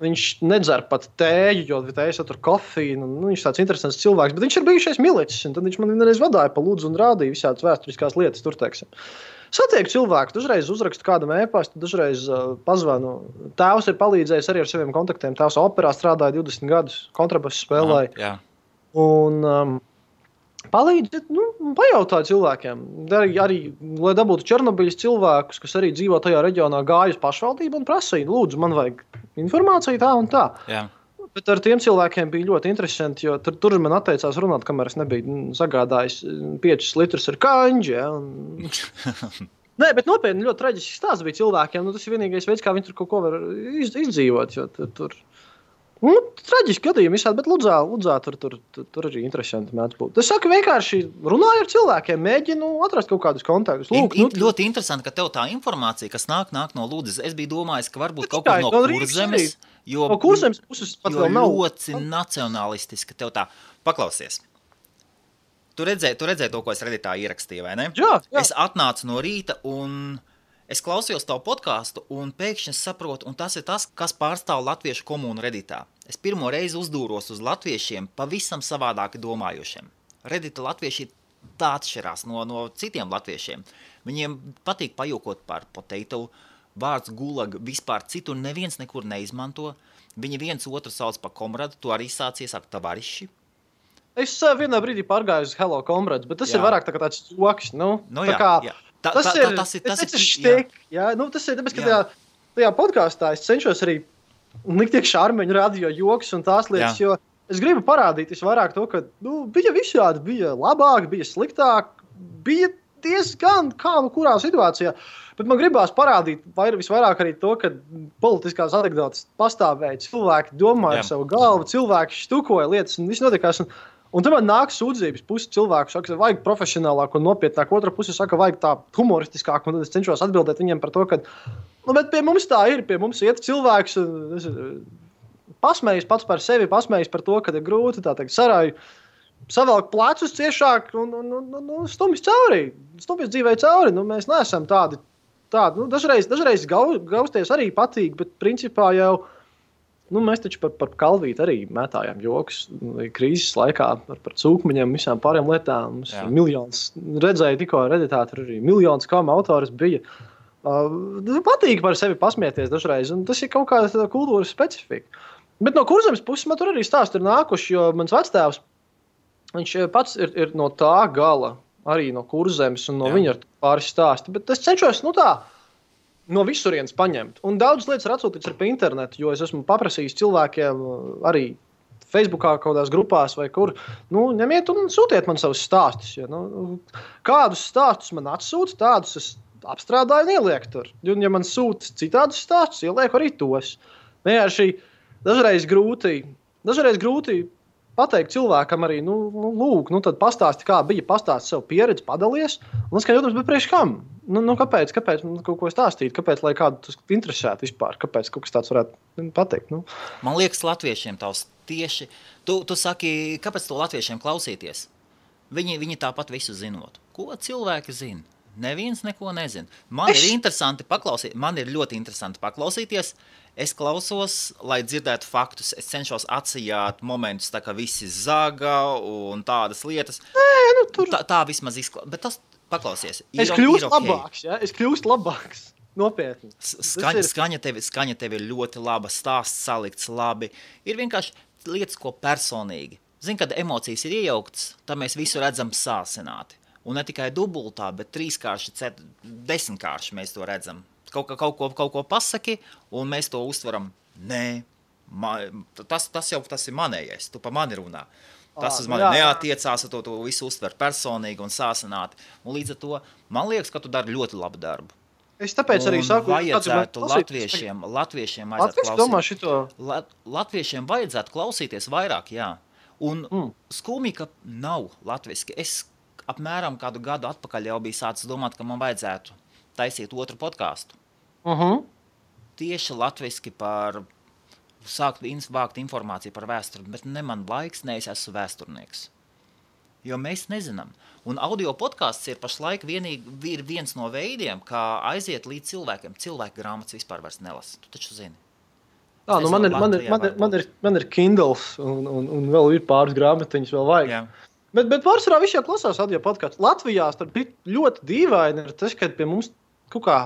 viņš nedzer pat tēju, jo tējas tur kofīnu, viņš tāds interesants cilvēks, bet viņš ir bijušais milicis, un tad viņš man vienreiz vadāja pa lūdzu un rādīja visādas vēsturiskās lietas tur, teiksim. Satieku cilvēku, dažreiz uzrakstu kādam e-pastu, dažreiz pazvanu. Tēvs ir palīdzējis arī ar saviem kontaktiem. Tēvs operā strādāja 20 gadus, kontrabasu spēlēja. Un palīdz, pajautāju cilvēkiem. Arī, lai dabūtu Černobiļas cilvēkus, kas arī dzīvo tajā reģionā, gāju uz pašvaldību un prasīju, lūdzu, man vajag informāciju tā un tā. Jā. Bet ar tiem cilvēkiem bija ļoti interesanti, jo tur man atteicās runāt, kamēr es nebiju sagādājis 5 litrus ar kaņģi. Ja, Nē, bet nopietni ļoti traģisks stāsts bija cilvēkiem. Tas ir vienīgais veids, kā viņi tur kaut ko var izdzīvot. Jo tur traģiski gadījumi visādi, bet Ludzā tur arī interesanti mēdz būt. Es saku, vienkārši runāju ar cilvēkiem, mēģinu atrast kaut kādus kontaktus. Ļoti interesanti, ka tev tā informācija, kas nāk no Ludzas, es biju domājis, ka varbūt kaut kur no Kurzemes, jo Kurzemes puses pat vēl nav. Ļoti nacionalistiski tev tā paklausies. Tu redzēji to, ko es Redditā ierakstīju, vai ne? Jā. Es atnācu no rīta un es klausījos tavu podcastu un pēkšņi saprotu, un tas ir tas, kas pārstāv latviešu komunu Redditā. Es pirmo reizi uzdūros uz latviešiem pavisam savādāki domājošiem. Reddita latvieši tā atšķirās no citiem latviešiem. Viņiem patīk pajokot par potato, vārds gulag vispār citur neviens nekur neizmanto. Viņi viens otru sauc par komradu, tu arī sācies ar tavariši. Es vienā brīdī pārgāju uz Hello Comrades, bet tas ir vairāk tā kā tāds joks. Tas ir štik. Tas ir tāpēc, ka tajā podkāstā es cenšos arī likt iekšā Armeņu radio joks un tās lietas, jo es gribu parādīt vairāk to, ka bija visādi, bija labāk, bija sliktāk, bija diezgan kā kurā situācijā. Bet man gribās parādīt visvairāk arī to, ka politiskās anekdotas pastāvēja, cilvēki domāja ar savu galvu, cilvēki štukoja lietas un viss notikās. Un tad man nāk sūdzības, pusi cilvēku saka, vajag profesionālāk un nopietnāk, otra puse saka, vajag tā humoristiskāk, un tad es cenšos atbildēt viņiem par to, ka, bet pie mums tā ir, pie mums iet cilvēks, pasmējis pats par sevi, pasmējis par to, ka ir grūti, tā teikt, sarāju, savelk plecus ciešāk un stumjas dzīvē cauri, mēs neesam tādi, dažreiz gausties arī patīk, bet principā jau, mēs taču par kalvīti arī mētājām joks krīzes laikā par cūkmeņiem, visām pārējām lietām. Mums miljons, redzēju tikko Redditā, tur arī miljons kama autors bija. Patīk par sevi pasmieties dažreiz, un tas ir kaut kāda kultūras specifika. Bet no Kurzemes puses man tur arī stāsti ir nākuši, jo mans vectēvs, viņš pats ir no tā gala, arī no Kurzemes, un no viņa ir pāris stāsti. Bet es cenšos, no visurienes paņemt. Un daudz lietas ir atsūtīts ar pa internetu, jo es esmu paprasījis cilvēkiem arī Facebookā, kaut kādās grupās vai kur. Nu, ņemiet un sūtiet man savus stāstus. Ja, kādus stāstus man atsūta, tādus es apstrādāju un ielieku tur. Un, ja man sūta citādus stāstus, ielieku arī tos. Vienkārši dažreiz grūti pateikt cilvēkam arī, lūk, tad pastāsti, kā bija, pastāsti savu pieredzi, padalies. Un es skatījos, bet priekš kam? Kāpēc kaut ko stāstīt? Kāpēc, lai kādu tas interesētu vispār? Kāpēc kaut kas tāds varētu pateikt? Man liekas, latviešiem tavs tieši... Tu saki, kāpēc to latviešiem klausīties? Viņi tāpat visu zinot. Ko cilvēki zina? Neviens neko nezina. Man ir ļoti interesanti paklausīties. Es klausos, lai dzirdētu faktus. Es cenšos atsijāt momentus, tā kā visi zaga un tādas lietas. Tā vismaz izklausās. Bet tas paklausies. Es kļūstu labāks, ja? Es kļūstu labāks. Nopietni. Skaņa tev ir ļoti laba, stāsts salikts labi. Ir vienkārši lietas, ko personīgi. Zini, kad emocijas ir iejauktas, tad mēs visu redzam sāsināti. Un ne tikai dubultā, bet 3-kārši, 10-kārši mēs to redzam. Kaut ko pasaki, un mēs to uztveram. Nē, tas ir manējais, tu pa mani runā. Tas uz mani neatiecās, to visu uztver personīgi un sāsināti. Un līdz ar to, man liekas, ka tu dari ļoti labu darbu. Es tāpēc arī saku, latviešiem vajadzētu klausīties vairāk, jā. Un skumji, ka nav latviski. Es apmēram kādu gadu atpakaļ jau bija sācis domāt, ka man vajadzētu taisīt otru podcastu. Tieši latviski par sākt vākt informāciju par vēsturi, bet ne man laiks, ne es esmu vēsturnieks. Jo mēs nezinām. Un audio podcasts ir pašlaik viens no veidiem, kā aiziet līdz cilvēkiem. Cilvēku grāmatas vispār vairs nelasa. Tu taču zini. Man ir Kindles un vēl ir pāris grāmatiņas vēl vajag. Jā. Bet pārsvarā visi jau klausās audio podcastu. Latvijā ļoti dīvaini ir tas, ka pie mums kaut kā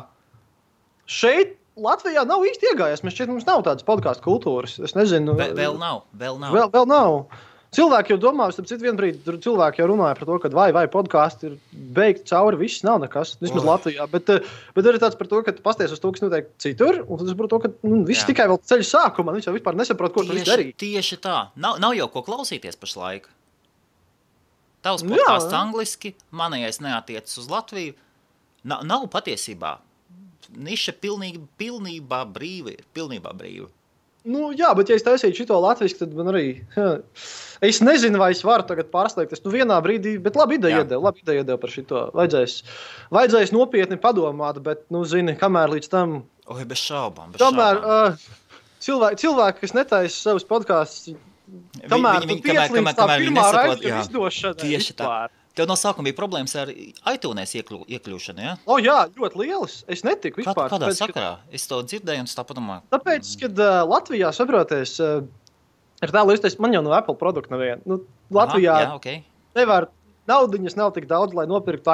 šeit Latvijā nav īsti iegājies. Mums nav tādas podcastu kultūras. Es nezinu. Vēl nav. Vēl nav. Cilvēki jau domā, vienu brīdi cilvēki jau runāja par to, ka vai podcastu ir beigti cauri, viss nav nekas, vismaz Latvijā. Bet arī tāds par to, ka tu pasties uz to, kas notiek citur, un tas par to, ka viss tikai vēl ceļa sākumā, viņš jau vispār nesaprot, ko tu viss darīt. Tieši tā. Nav jau ko klausīties pašlaik. Tavs podcasts angliski, manējais neatiecas uz Latviju. Nav patiesībā. Niša pilnībā brīva. Jā, bet ja es taisītu šito latviski, tad man arī... Es nezinu, vai es varu tagad pārslēgties. Vienā brīdī, bet labi ideja iedeva par šito. Vajadzēs nopietni padomāt, bet, zini, kamēr līdz tam... Bez šaubām. Kamēr cilvēki, kas netaisa savus podkastus, kamēr pirmā raidījuma izdošana. Tieši tā. Tev no sākuma bija problēmas ar iTunes iekļūšanu, ja? Jā, ļoti lielas. Es netiku vispār. Kādā sakarā? Es to dzirdēju un tā padomāju. Tāpēc, kad Latvijā saproties, ir tā līdz, man jau no Apple produkta neviena. Latvijā nevar, naudiņas nav tik daudz, lai nopirktu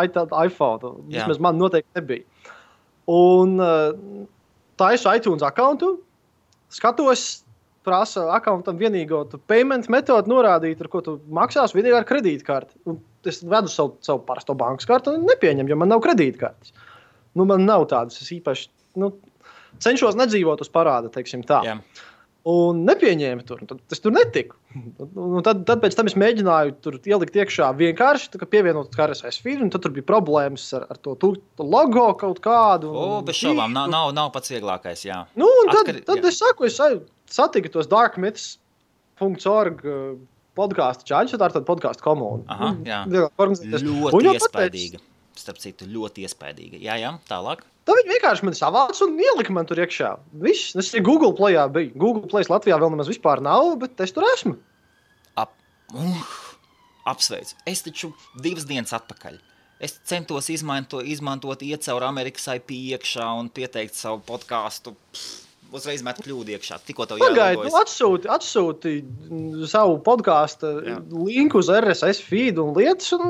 iPhone. Vismaz man noteikti nebija. Un taisu iTunes accountu, skatos, prasa accountam vienīgo payment metodu norādīt, ar ko tu maksās, vienīgi ar kredītkarti. Un es vedu savu parasto bankas kartu un nepieņem, jo man nav kredītkartes. Man nav tādas, es īpaši cenšos nedzīvot uz parāda, teiksim tā. Jā. Un nepieņēmu tur, tad es tur netiku. Tad pēc tam es mēģināju tur ielikt iekšā vienkārši, pievienot RSS feed, un tad tur bija problēmas ar to logo kaut kādu. Bez šaubām, nav pats vieglākais, jā. Tad es saku, es satiku tos darkmyths.org podcastu čaļus, tā ir tāda podcastu komuna. Jā. Ļoti iespaidīga. Starp citu, ļoti iespaidīga. Jā, tālāk. Tā viņi vienkārši man savāca un ielika man tur iekšā. Viss, es arī Google Playā biju. Google Plays Latvijā vēl nemaz vispār nav, bet es tur esmu. Apsveicu. Es taču 2 dienas atpakaļ. Es centos izmantot iet caur Amerikas IP iekšā un pieteikt savu podcastu. Uzreiz met kļūdu iekšā. Tikko tev jālogojas. Atsūti savu podcastu linku uz RSS feed un lietas un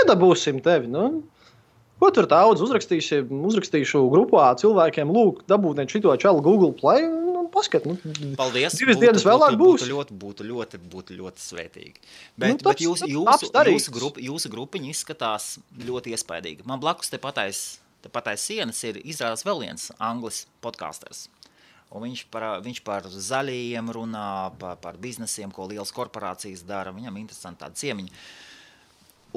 iedabūsim tevi. Ko tur daudz uzrakstīšu grupā cilvēkiem, lūk, dabūtiet šito čalu Google Play un paskat. Paldies. 2 dienas vēlāk būs. Būtu ļoti svētīgi. Bet jūsu grupiņa izskatās ļoti iespaidīgi. Man blakus te patais sienas ir izrādās vēl viens anglis podkasters. Un viņš par zaļajiem runā, par biznesiem, ko lielas korporācijas dara. Viņam interesanti tāda ciemiņa.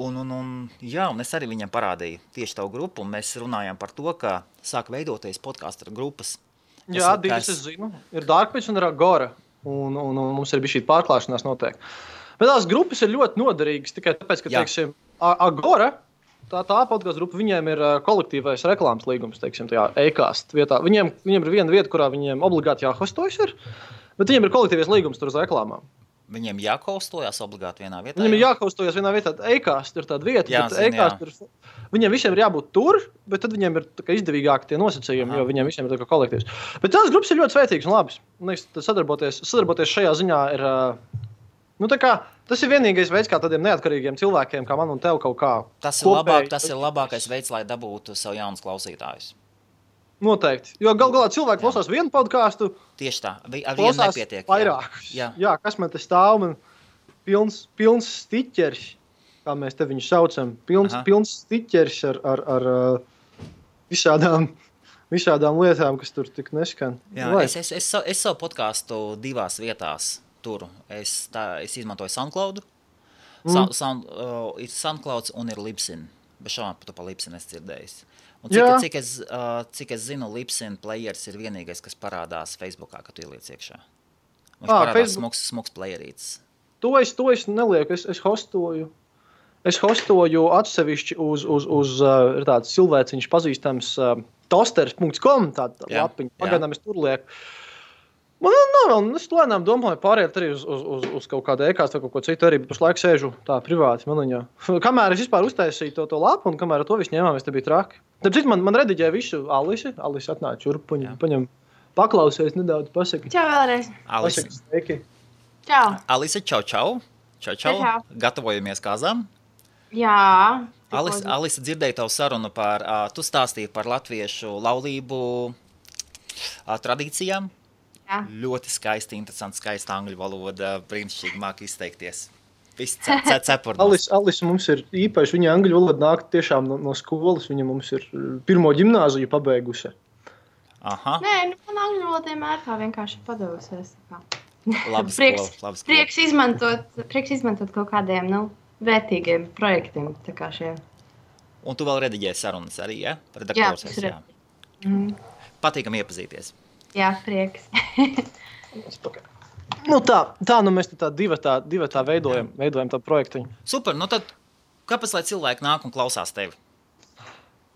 Un es arī viņam parādīju tieši tavu grupu, un mēs runājām par to, ka sāk veidoties podcastu grupas. Jā, divas es zinu. Ir Darkpitch un ir Agora. Un mums ir bija šī pārklāšanās noteikti. Bet tās grupas ir ļoti noderīgas tikai tāpēc, ka, teiksim, Agora, tā podcastu grupa, viņiem ir kolektīvais reklāmas līgums, teiksim, tajā e-cast vietā. Viņiem ir viena vieta, kurā viņiem obligāti jāhostojas ir, bet viņiem ir kolektīvais līgums tur uz reklāmām. Viņiem jāhostojas obligāti vienā vietā? Viņiem ir jāhostojas vienā vietā. E-cast ir tāda vieta, viņiem visiem ir jābūt tur, bet tad viņiem ir izdevīgāki tie nosacījumi, jo viņiem visiem ir tā kā kolektīvs. Bet tās grupas ir ļoti svētīgas un labas. Sadarboties šajā ziņā ir, tas ir vienīgais veids, kā tādiem neatkarīgiem cilvēkiem, kā man un tev kaut kā. Tas ir labākais veids, lai dabūtu sev jaunus klausītājus. Noteikti. Jo galā cilvēki klausās vienu podcastu. Tieši tā. Ar vienu nepietiek. Vairākus. Jā, kas man te stāv? Man pilns stiķers, kā mēs te viņu saucam. Pilns stiķers ar visādām lietām, kas tur tik neskan. Jā, es savu podcastu divās vietās turu. Es izmantoju SoundCloud. Ir SoundCloud un ir Libsyn. Bez šaubām tu pa Libsyn esi dzirdējis. Un cik es zinu, Libsyn players ir vienīgais, kas parādās Facebookā, kad tu ieliec iekšā. Viņš parādās smuks playerītis. To es nelieku, es hostoju. Es hostoju atsevišķi uz ir tāds cilvēciņš pazīstams tosters.com, tāda lapiņa. Pagaidām es tur lieku. Es lēnām domāju pāriet arī uz kaut kādu e-kāstu vai kaut ko citu, arī pašlaik sēžu tā privāti maniņā. Kamēr es vispār uztaisīju to lapu un kamēr to visu ņēmām, es te biju traki. Tāpēc man rediģēja visu Alise atnāca šurp, paņem paklausies nedaudz, pasaki. Čau vēlreiz. Alise. Sveiki. Čau. Alise, čau. Gatavojamies kāzām? Jā. Alise, dzirdēju tavu sarunu tu stāstīji par latviešu laulību tradīcijām. Jā. Ļoti skaisti, interesanti, skaista angļu valoda, brīnišķīgi māk izteikties. Viss cepurnos. Alise mums ir īpaši, viņa angļu valoda nāk tiešām no skolas, viņa mums ir pirmo ģimnāziju pabeigusi. Aha. Nē, man angļu valoda vienmēr tā vienkārši padevusies. Labi skola. Prieks izmantot kaut kādiem, vērtīgiem projektiem, tā kā šiem. Un tu vēl rediģēji sarunas arī, ja? Redaktors esi, jā. Patīkam iepazīties. Jā, prieks. Mēs tā divatā veidojam tā projektiņu. Super, tad kāpēc, lai cilvēki nāk un klausās tevi?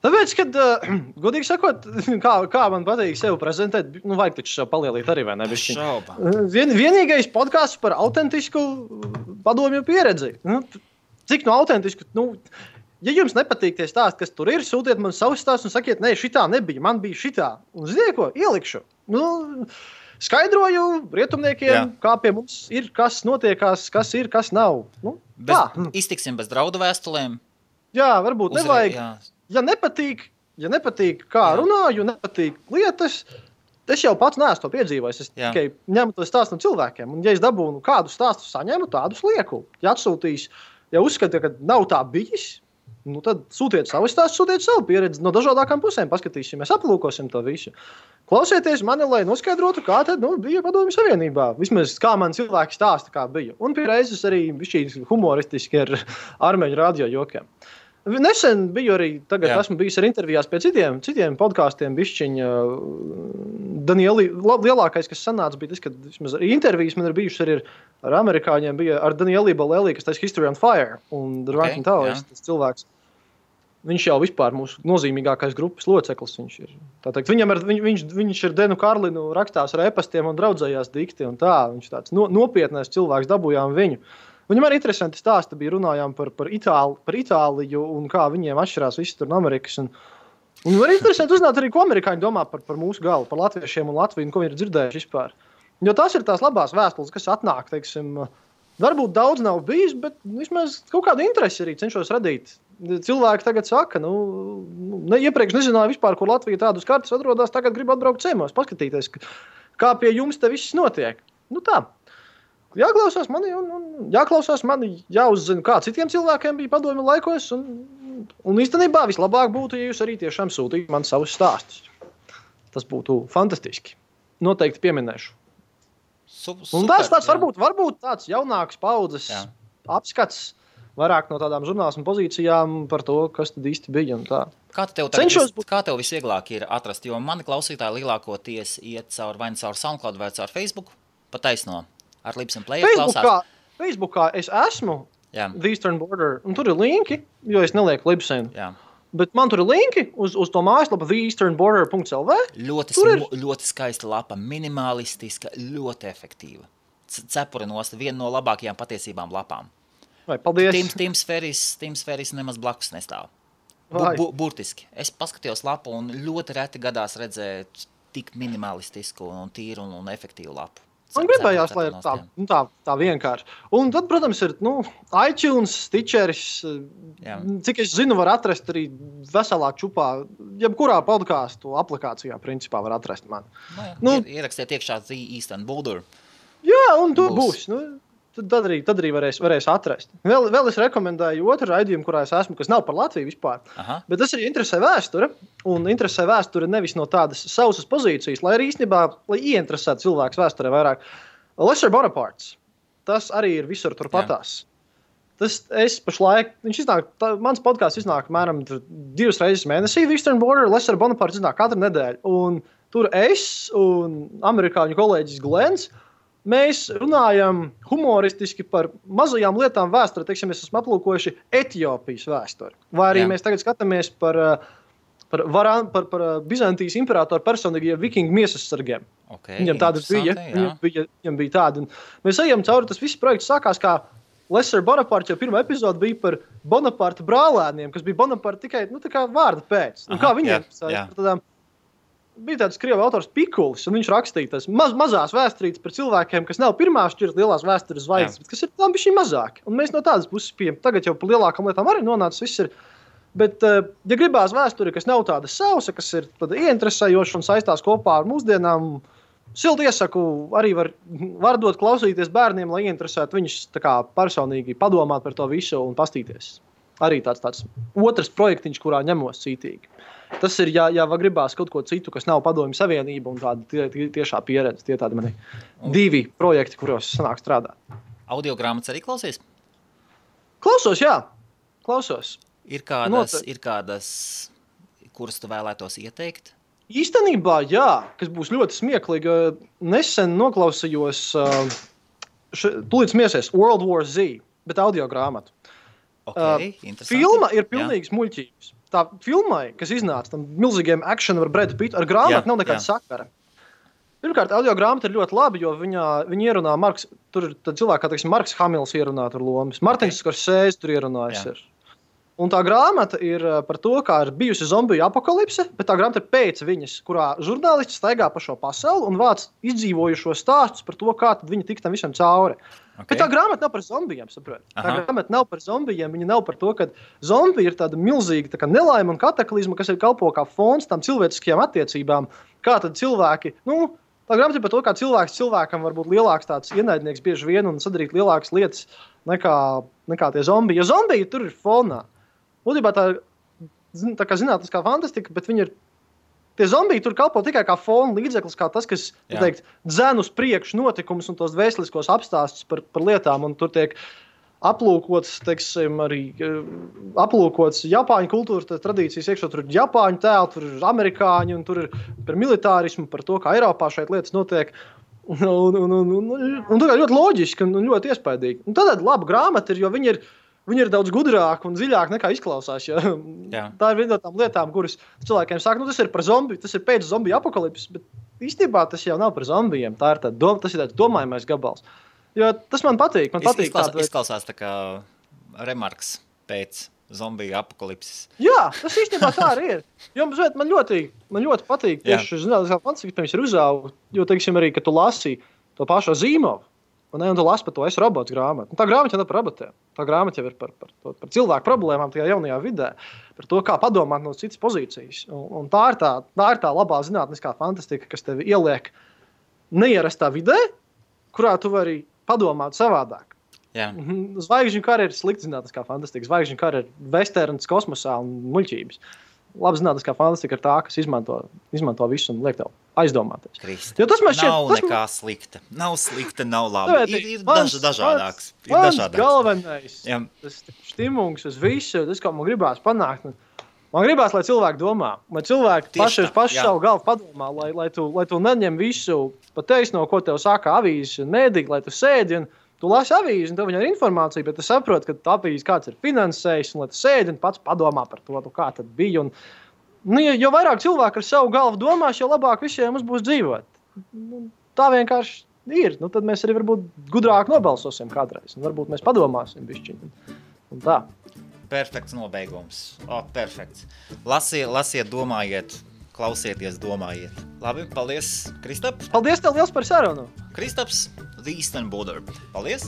Tāpēc, kad, godīgi sakot, kā man patīk sevi prezentēt, vajag taču sev palielīt arī, vai ne? Šauba. Vienīgais podcasts par autentisku padomju pieredzi. Cik autentisku, ja jums nepatīk tie stāsti, kas tur ir, sūtiet man savus stāstus un sakiet, nē, šitā nebija, man bija šitā. Un ziniet ko, ielikšu. Skaidroju rietumniekiem, kā pie mums ir, kas notiekās, kas ir, kas nav. Iztiksim bez draudu vēstulēm. Jā, varbūt nevajag. Ja nepatīk kā runāju, nepatīk lietas, es jau pats neesmu to piedzīvojis. Es tikai ņemu to stāstu no cilvēkiem. Un ja es dabūnu kādu stāstu saņemu, tādus lieku. Ja atsūtīs, ja uzskata, ka nav tā bijis, tad sūtiet savu stāstu, sūtiet savu pieredzi no dažādākām pusēm, paskatīsimies, aplūkosim to visu. Klausieties mani, lai noskaidrotu, kā tad bija Padomju Savienībā. Vismaz kā man cilvēki stāsta, kā bija. Un pie reizes arī bišķīgi humoristiski ar armeņu radio jokiem. Nesen biju arī, esmu bijis ar intervijās pie citiem podkāstiem bišķiņa. Lielākais, kas sanāca, bija tas, ka vismaz arī intervijas man ir bijušas arī ar amerikāņiem, bija ar Danieli Balelī, kas taisa History on Fire, un The Ranking Towers, tas cilvēks. Viņš jau vispār mūsu nozīmīgākais grupas loceklis. Viņš ir. Tātad, viņš ir Denu Karlinu rakstās ar e-pastiem un draudzējās dikti un tā. Viņš tāds nopietnais cilvēks, dabūjām viņu. Viņam arī interesanti stāsti bija, runājām par Itāliju un kā viņiem atšķirās visi tur no Amerikas. Un arī interesanti uzzināt arī, ko amerikāņi domā par mūsu galu, par latviešiem un Latviju, un ko viņi ir dzirdējuši vispār. Jo tās ir tās labās vēstules, kas atnāk, teiksim, varbūt daudz nav bijis, bet vismaz kaut kādu interesi arī cenšos radīt. Cilvēki tagad saka, iepriekš nezināju vispār, kur Latvija tādus kartus atrodas, tagad gribu atbraukt ciemos, paskatīties, kā pie jums te viss notiek. Tā. Jāklausās mani, jāuzzina, kā citiem cilvēkiem bija padomju laikos, un īstenībā vislabāk būtu, ja jūs arī tiešām sūtītu man savus stāstus. Tas būtu fantastiski. noteikti pieminēšu. Un tas varbūt tāds jaunāks paudzes apskats, vairāk no tādām žurnālismu pozīcijām par to, kas tad īsti bija un tā. Kā tev visvieglāk ir atrast, jo mani klausītāji lielākoties iet vai caur SoundCloud vai caur Facebook, pa taisno, ar Libsyn Player klausās. Facebookā es esmu The Eastern Border, un tur ir linki, jo es nelieku Libsyn. Bet man tur ir linki uz to mājaslapu theeasternborder.lv. Ļoti skaista lapa, minimalistiska, ļoti efektīva. Cepuri nost, viena no labākajām patiesībām lapām. Vai, paldies. Teams Ferris nemaz blakus nestāv. Burtiski. Es paskatījos lapu un ļoti reti gadās redzēt tik minimalistisku un tīru un efektīvu lapu. Man gribējās, lai ir tā vienkārši. Un tad, protams, ir iTunes, Stitcheris, cik es zinu, var atrast arī veselā čupā, jebkurā podcastu aplikācijā, principā, var atrast mani. Ierakstiet iekšā The Eastern Border. Jā, un tur būs. Tad arī varēs atrast. Vēl es rekomendēju otru raidījumu, kurā es esmu, kas nav par Latviju vispār. Bet tas arī interesē vēsture. Un interesē vēsture nevis no tādas sausas pozīcijas, lai arī īstenībā, lai ieinteresētu cilvēks vēsturē vairāk. Lesser Bonaparte. Tas arī ir visur turpatās. Es pašlaik, mans podcasts iznāk mēram 2 reizes mēnesī, Eastern Border, Lesser Bonaparte iznāk katru nedēļu. Un tur es un amerikāņu kolēģis Glens, mēs runājam humoristiski par mazajām lietām vēsturē. Teiksim, mēs esam aplūkojuši Etiopijas vēsturi. Vai arī mēs tagad skatāmies par Bizantijas imperatoru personīgajiem vikingu miesas sargiem. Viņam tādas bija. Viņam bija tāda. Un mēs ejam cauri, tas viss projekts sākās kā Lesser Bonaparte, jo pirmā epizode bija par Bonaparte brālēniem, kas bija Bonaparte tikai tā kā vārda pēc. Un kā viņiem bija tāds krievu autors Pikulis, un viņš rakstīja tās mazās vēsturītes par cilvēkiem, kas nav pirmā šķirt lielās vēstures zvaigznes, bet kas ir tam bišķi mazāki. Un mēs no tādas puses pieejam. Tagad jau par lielākām lietām arī nonācis viss ir. Bet, ja gribās vēsturi, kas nav tāda sausa, kas ir tāda ieinteresējoša un saistās kopā ar mūsdienām, silti iesaku, arī var dot klausīties bērniem, lai ieinteresētu viņus tā kā personīgi padomāt par to visu un pastīties. Arī tāds otrs projektiņš, kurā ņemos cītīgi. Tas ir, ja gribās kaut ko citu, kas nav Padomju Savienība un tāda tiešā pieredze. Tie tādi mani 2 projekti, kuros sanāk strādāt. Audiogrāmatas arī klausies? Klausos, jā. Klausos. Ir kādas, kuras tu vēlētos ieteikt? Īstenībā, jā, kas būs ļoti smieklīgi. Nesen noklausījos tūlīt smiesies World War Z, bet audiogrāmatu. Filma ir pilnīgs muļķības. Tā filmai, kas iznāca tam milzīgiem akšanu ar Bradu Pittu, ar grāmatu nav nekāda sakara. Pirmkārt, audiogrāmata ir ļoti labi, jo viņa ierunā tur ir cilvēki, kā teiksim, Marks Hamils ierunā tur lomas, Martins Skorsēzes tur ierunājas ir. Un tā grāmata ir par to, kā ir bijusi zombiju apokalipse, bet tā grāmata ir pēc viņas, kurā žurnālisti staigā pa šo pasauli un vāc izdzīvojušo stāstus par to, kā tad viņi tik tam visam cauri. Bet tā grāmata nav par zombijiem, saprot. Tā grāmata nav par zombijiem, viņa nav par to, ka zombija ir tāda milzīga nelaime un kataklizma, kas ir kalpo kā fons tām cilvēciskajām attiecībām. Kā tad cilvēki, tā grāmata ir par to, kā cilvēkam var būt lielāks tāds ienaidnieks bieži vien un sadarīt lielākas lietas nekā tie zombiji. Jo zombiji tur ir fonā. Būtībā tā kā zinātniskā fantastika, bet viņi ir. Tie zombiji tur kalpo tikai kā fona līdzeklis, kā tas, kas, dzen uz priekšu notikumus un tos vēsturiskos apstāstus par lietām, un tur tiek aplūkots, teiksim, arī aplūkots Japāņu kultūra tradīcijas, iekšā tur ir Japāņu tēli, tur ir amerikāņi, un tur ir par militārismu, par to, kā Eiropā šeit lietas notiek, un tā kā ļoti loģiski un ļoti iespaidīgi. Un tad laba grāmata ir, jo viņi ir daudz gudrāki un dziļāki nekā izklausās. Ja? Tā ir viena no tām lietām, kuras cilvēkiem saka, tas ir par zombiju, tas ir pēc zombiju apokalipses, bet īstenībā tas jau nav par zombijiem. Tas ir tāds domājamais gabals. Jo tas man patīk. Izklausās tā kā remarks pēc zombiju apokalipses. Jā, tas īstenībā tā arī ir. Jo man ļoti patīk tieši zinātniskā fantastika, pirms ir uzaugu, jo, teiksim, arī, ka tu lasi to pašu Zīmovu. Un tu lasi par to Es robots grāmatu. Tā grāmata jau nav par robotiem. Tā grāmata jau ir par cilvēku problēmām tajā jaunajā vidē. Par to, kā padomāt no citas pozīcijas. Un tā ir tā labā zinātniskā fantastika, kas tevi ieliek neierastā vidē, kurā tu vari padomāt savādāk. Zvaigžņu kara ir slikta zinātniskā fantastika. Zvaigžņu kara ir vesterns kosmosā un muļķības. labi zinātniskā fantastika ir tā, kas izmanto visu un liek tev aizdomāties. Krista, nav nekā slikta. Nav slikta, nav labi. Ir dažādāks. Mans galvenais, tas stimuls uz visu, tas, ko man gribās panākt. Man gribās, lai cilvēki domā, lai cilvēki paši savu galvu padomā, lai tu neņem visu pa taisno, ko tev saka avīzes un mēdīgi, lai tu sēdi un tu lasi avīzi un tev viņam ir informācija, bet tu saproti, ka tā avīze kāds ir finansējis un lai tu sēdi un pats padomā par to, kā tad bija. Un, jo vairāk cilvēki ar savu galvu domās, jo labāk visiem mums būs dzīvot. Tā vienkārši ir. Tad mēs arī varbūt gudrāk nobalsosim kādreiz. Un varbūt mēs padomāsim bišķiņ. Un tā. Perfekts nobeigums. Perfekts. Lasiet, domājiet, klausieties, domājiet. Labi, paldies, Kristaps. Paldies tev liels par sarunu. Kristaps, The Eastern Border. Paldies.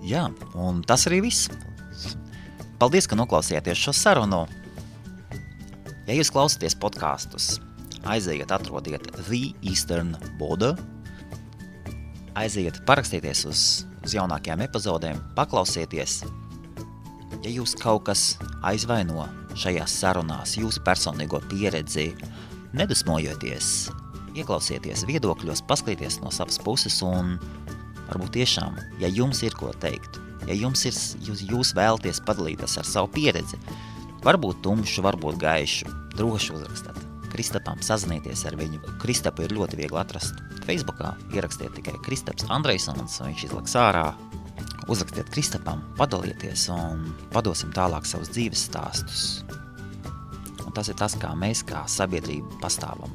Jā, un tas arī viss. Paldies, ka noklausījāties šo sarunu. Ja jūs klausāties podkastus, aiziet, atrodiet The Eastern Border. Aiziet, parakstieties uz jaunākajām epizodēm, paklausieties. Ja jūs kaut kas aizvaino šajās sarunās, jūsu personīgo pieredzi, nedusmojoties, ieklausieties viedokļos, paskaties no savas puses un varbūt tiešām, ja jums ir ko teikt, ja jūs vēlaties padalīties ar savu pieredzi, varbūt tumšu, varbūt gaišu, droši uzrakstāt Kristapam, sazinieties ar viņu. Kristapu ir ļoti viegli atrast Facebookā, ierakstiet tikai Kristaps Andreisons, un viņš izlaks ārā. Uzrakstiet Kristapam, padalieties un padosim tālāk savus dzīves stāstus. Un tas ir tas, kā mēs, kā sabiedrība pastāvam.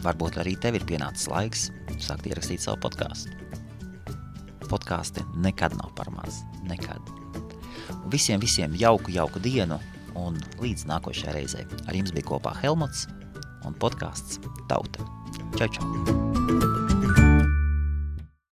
Varbūt arī tev ir pienācis laiks sākt ierakstīt savu podcastu. Podkasti nekad nav par maz. Nekad. Visiem jauku dienu un līdz nākošajai reizei. Ar jums bija kopā Helmuts un podcasts Tauta. Čau!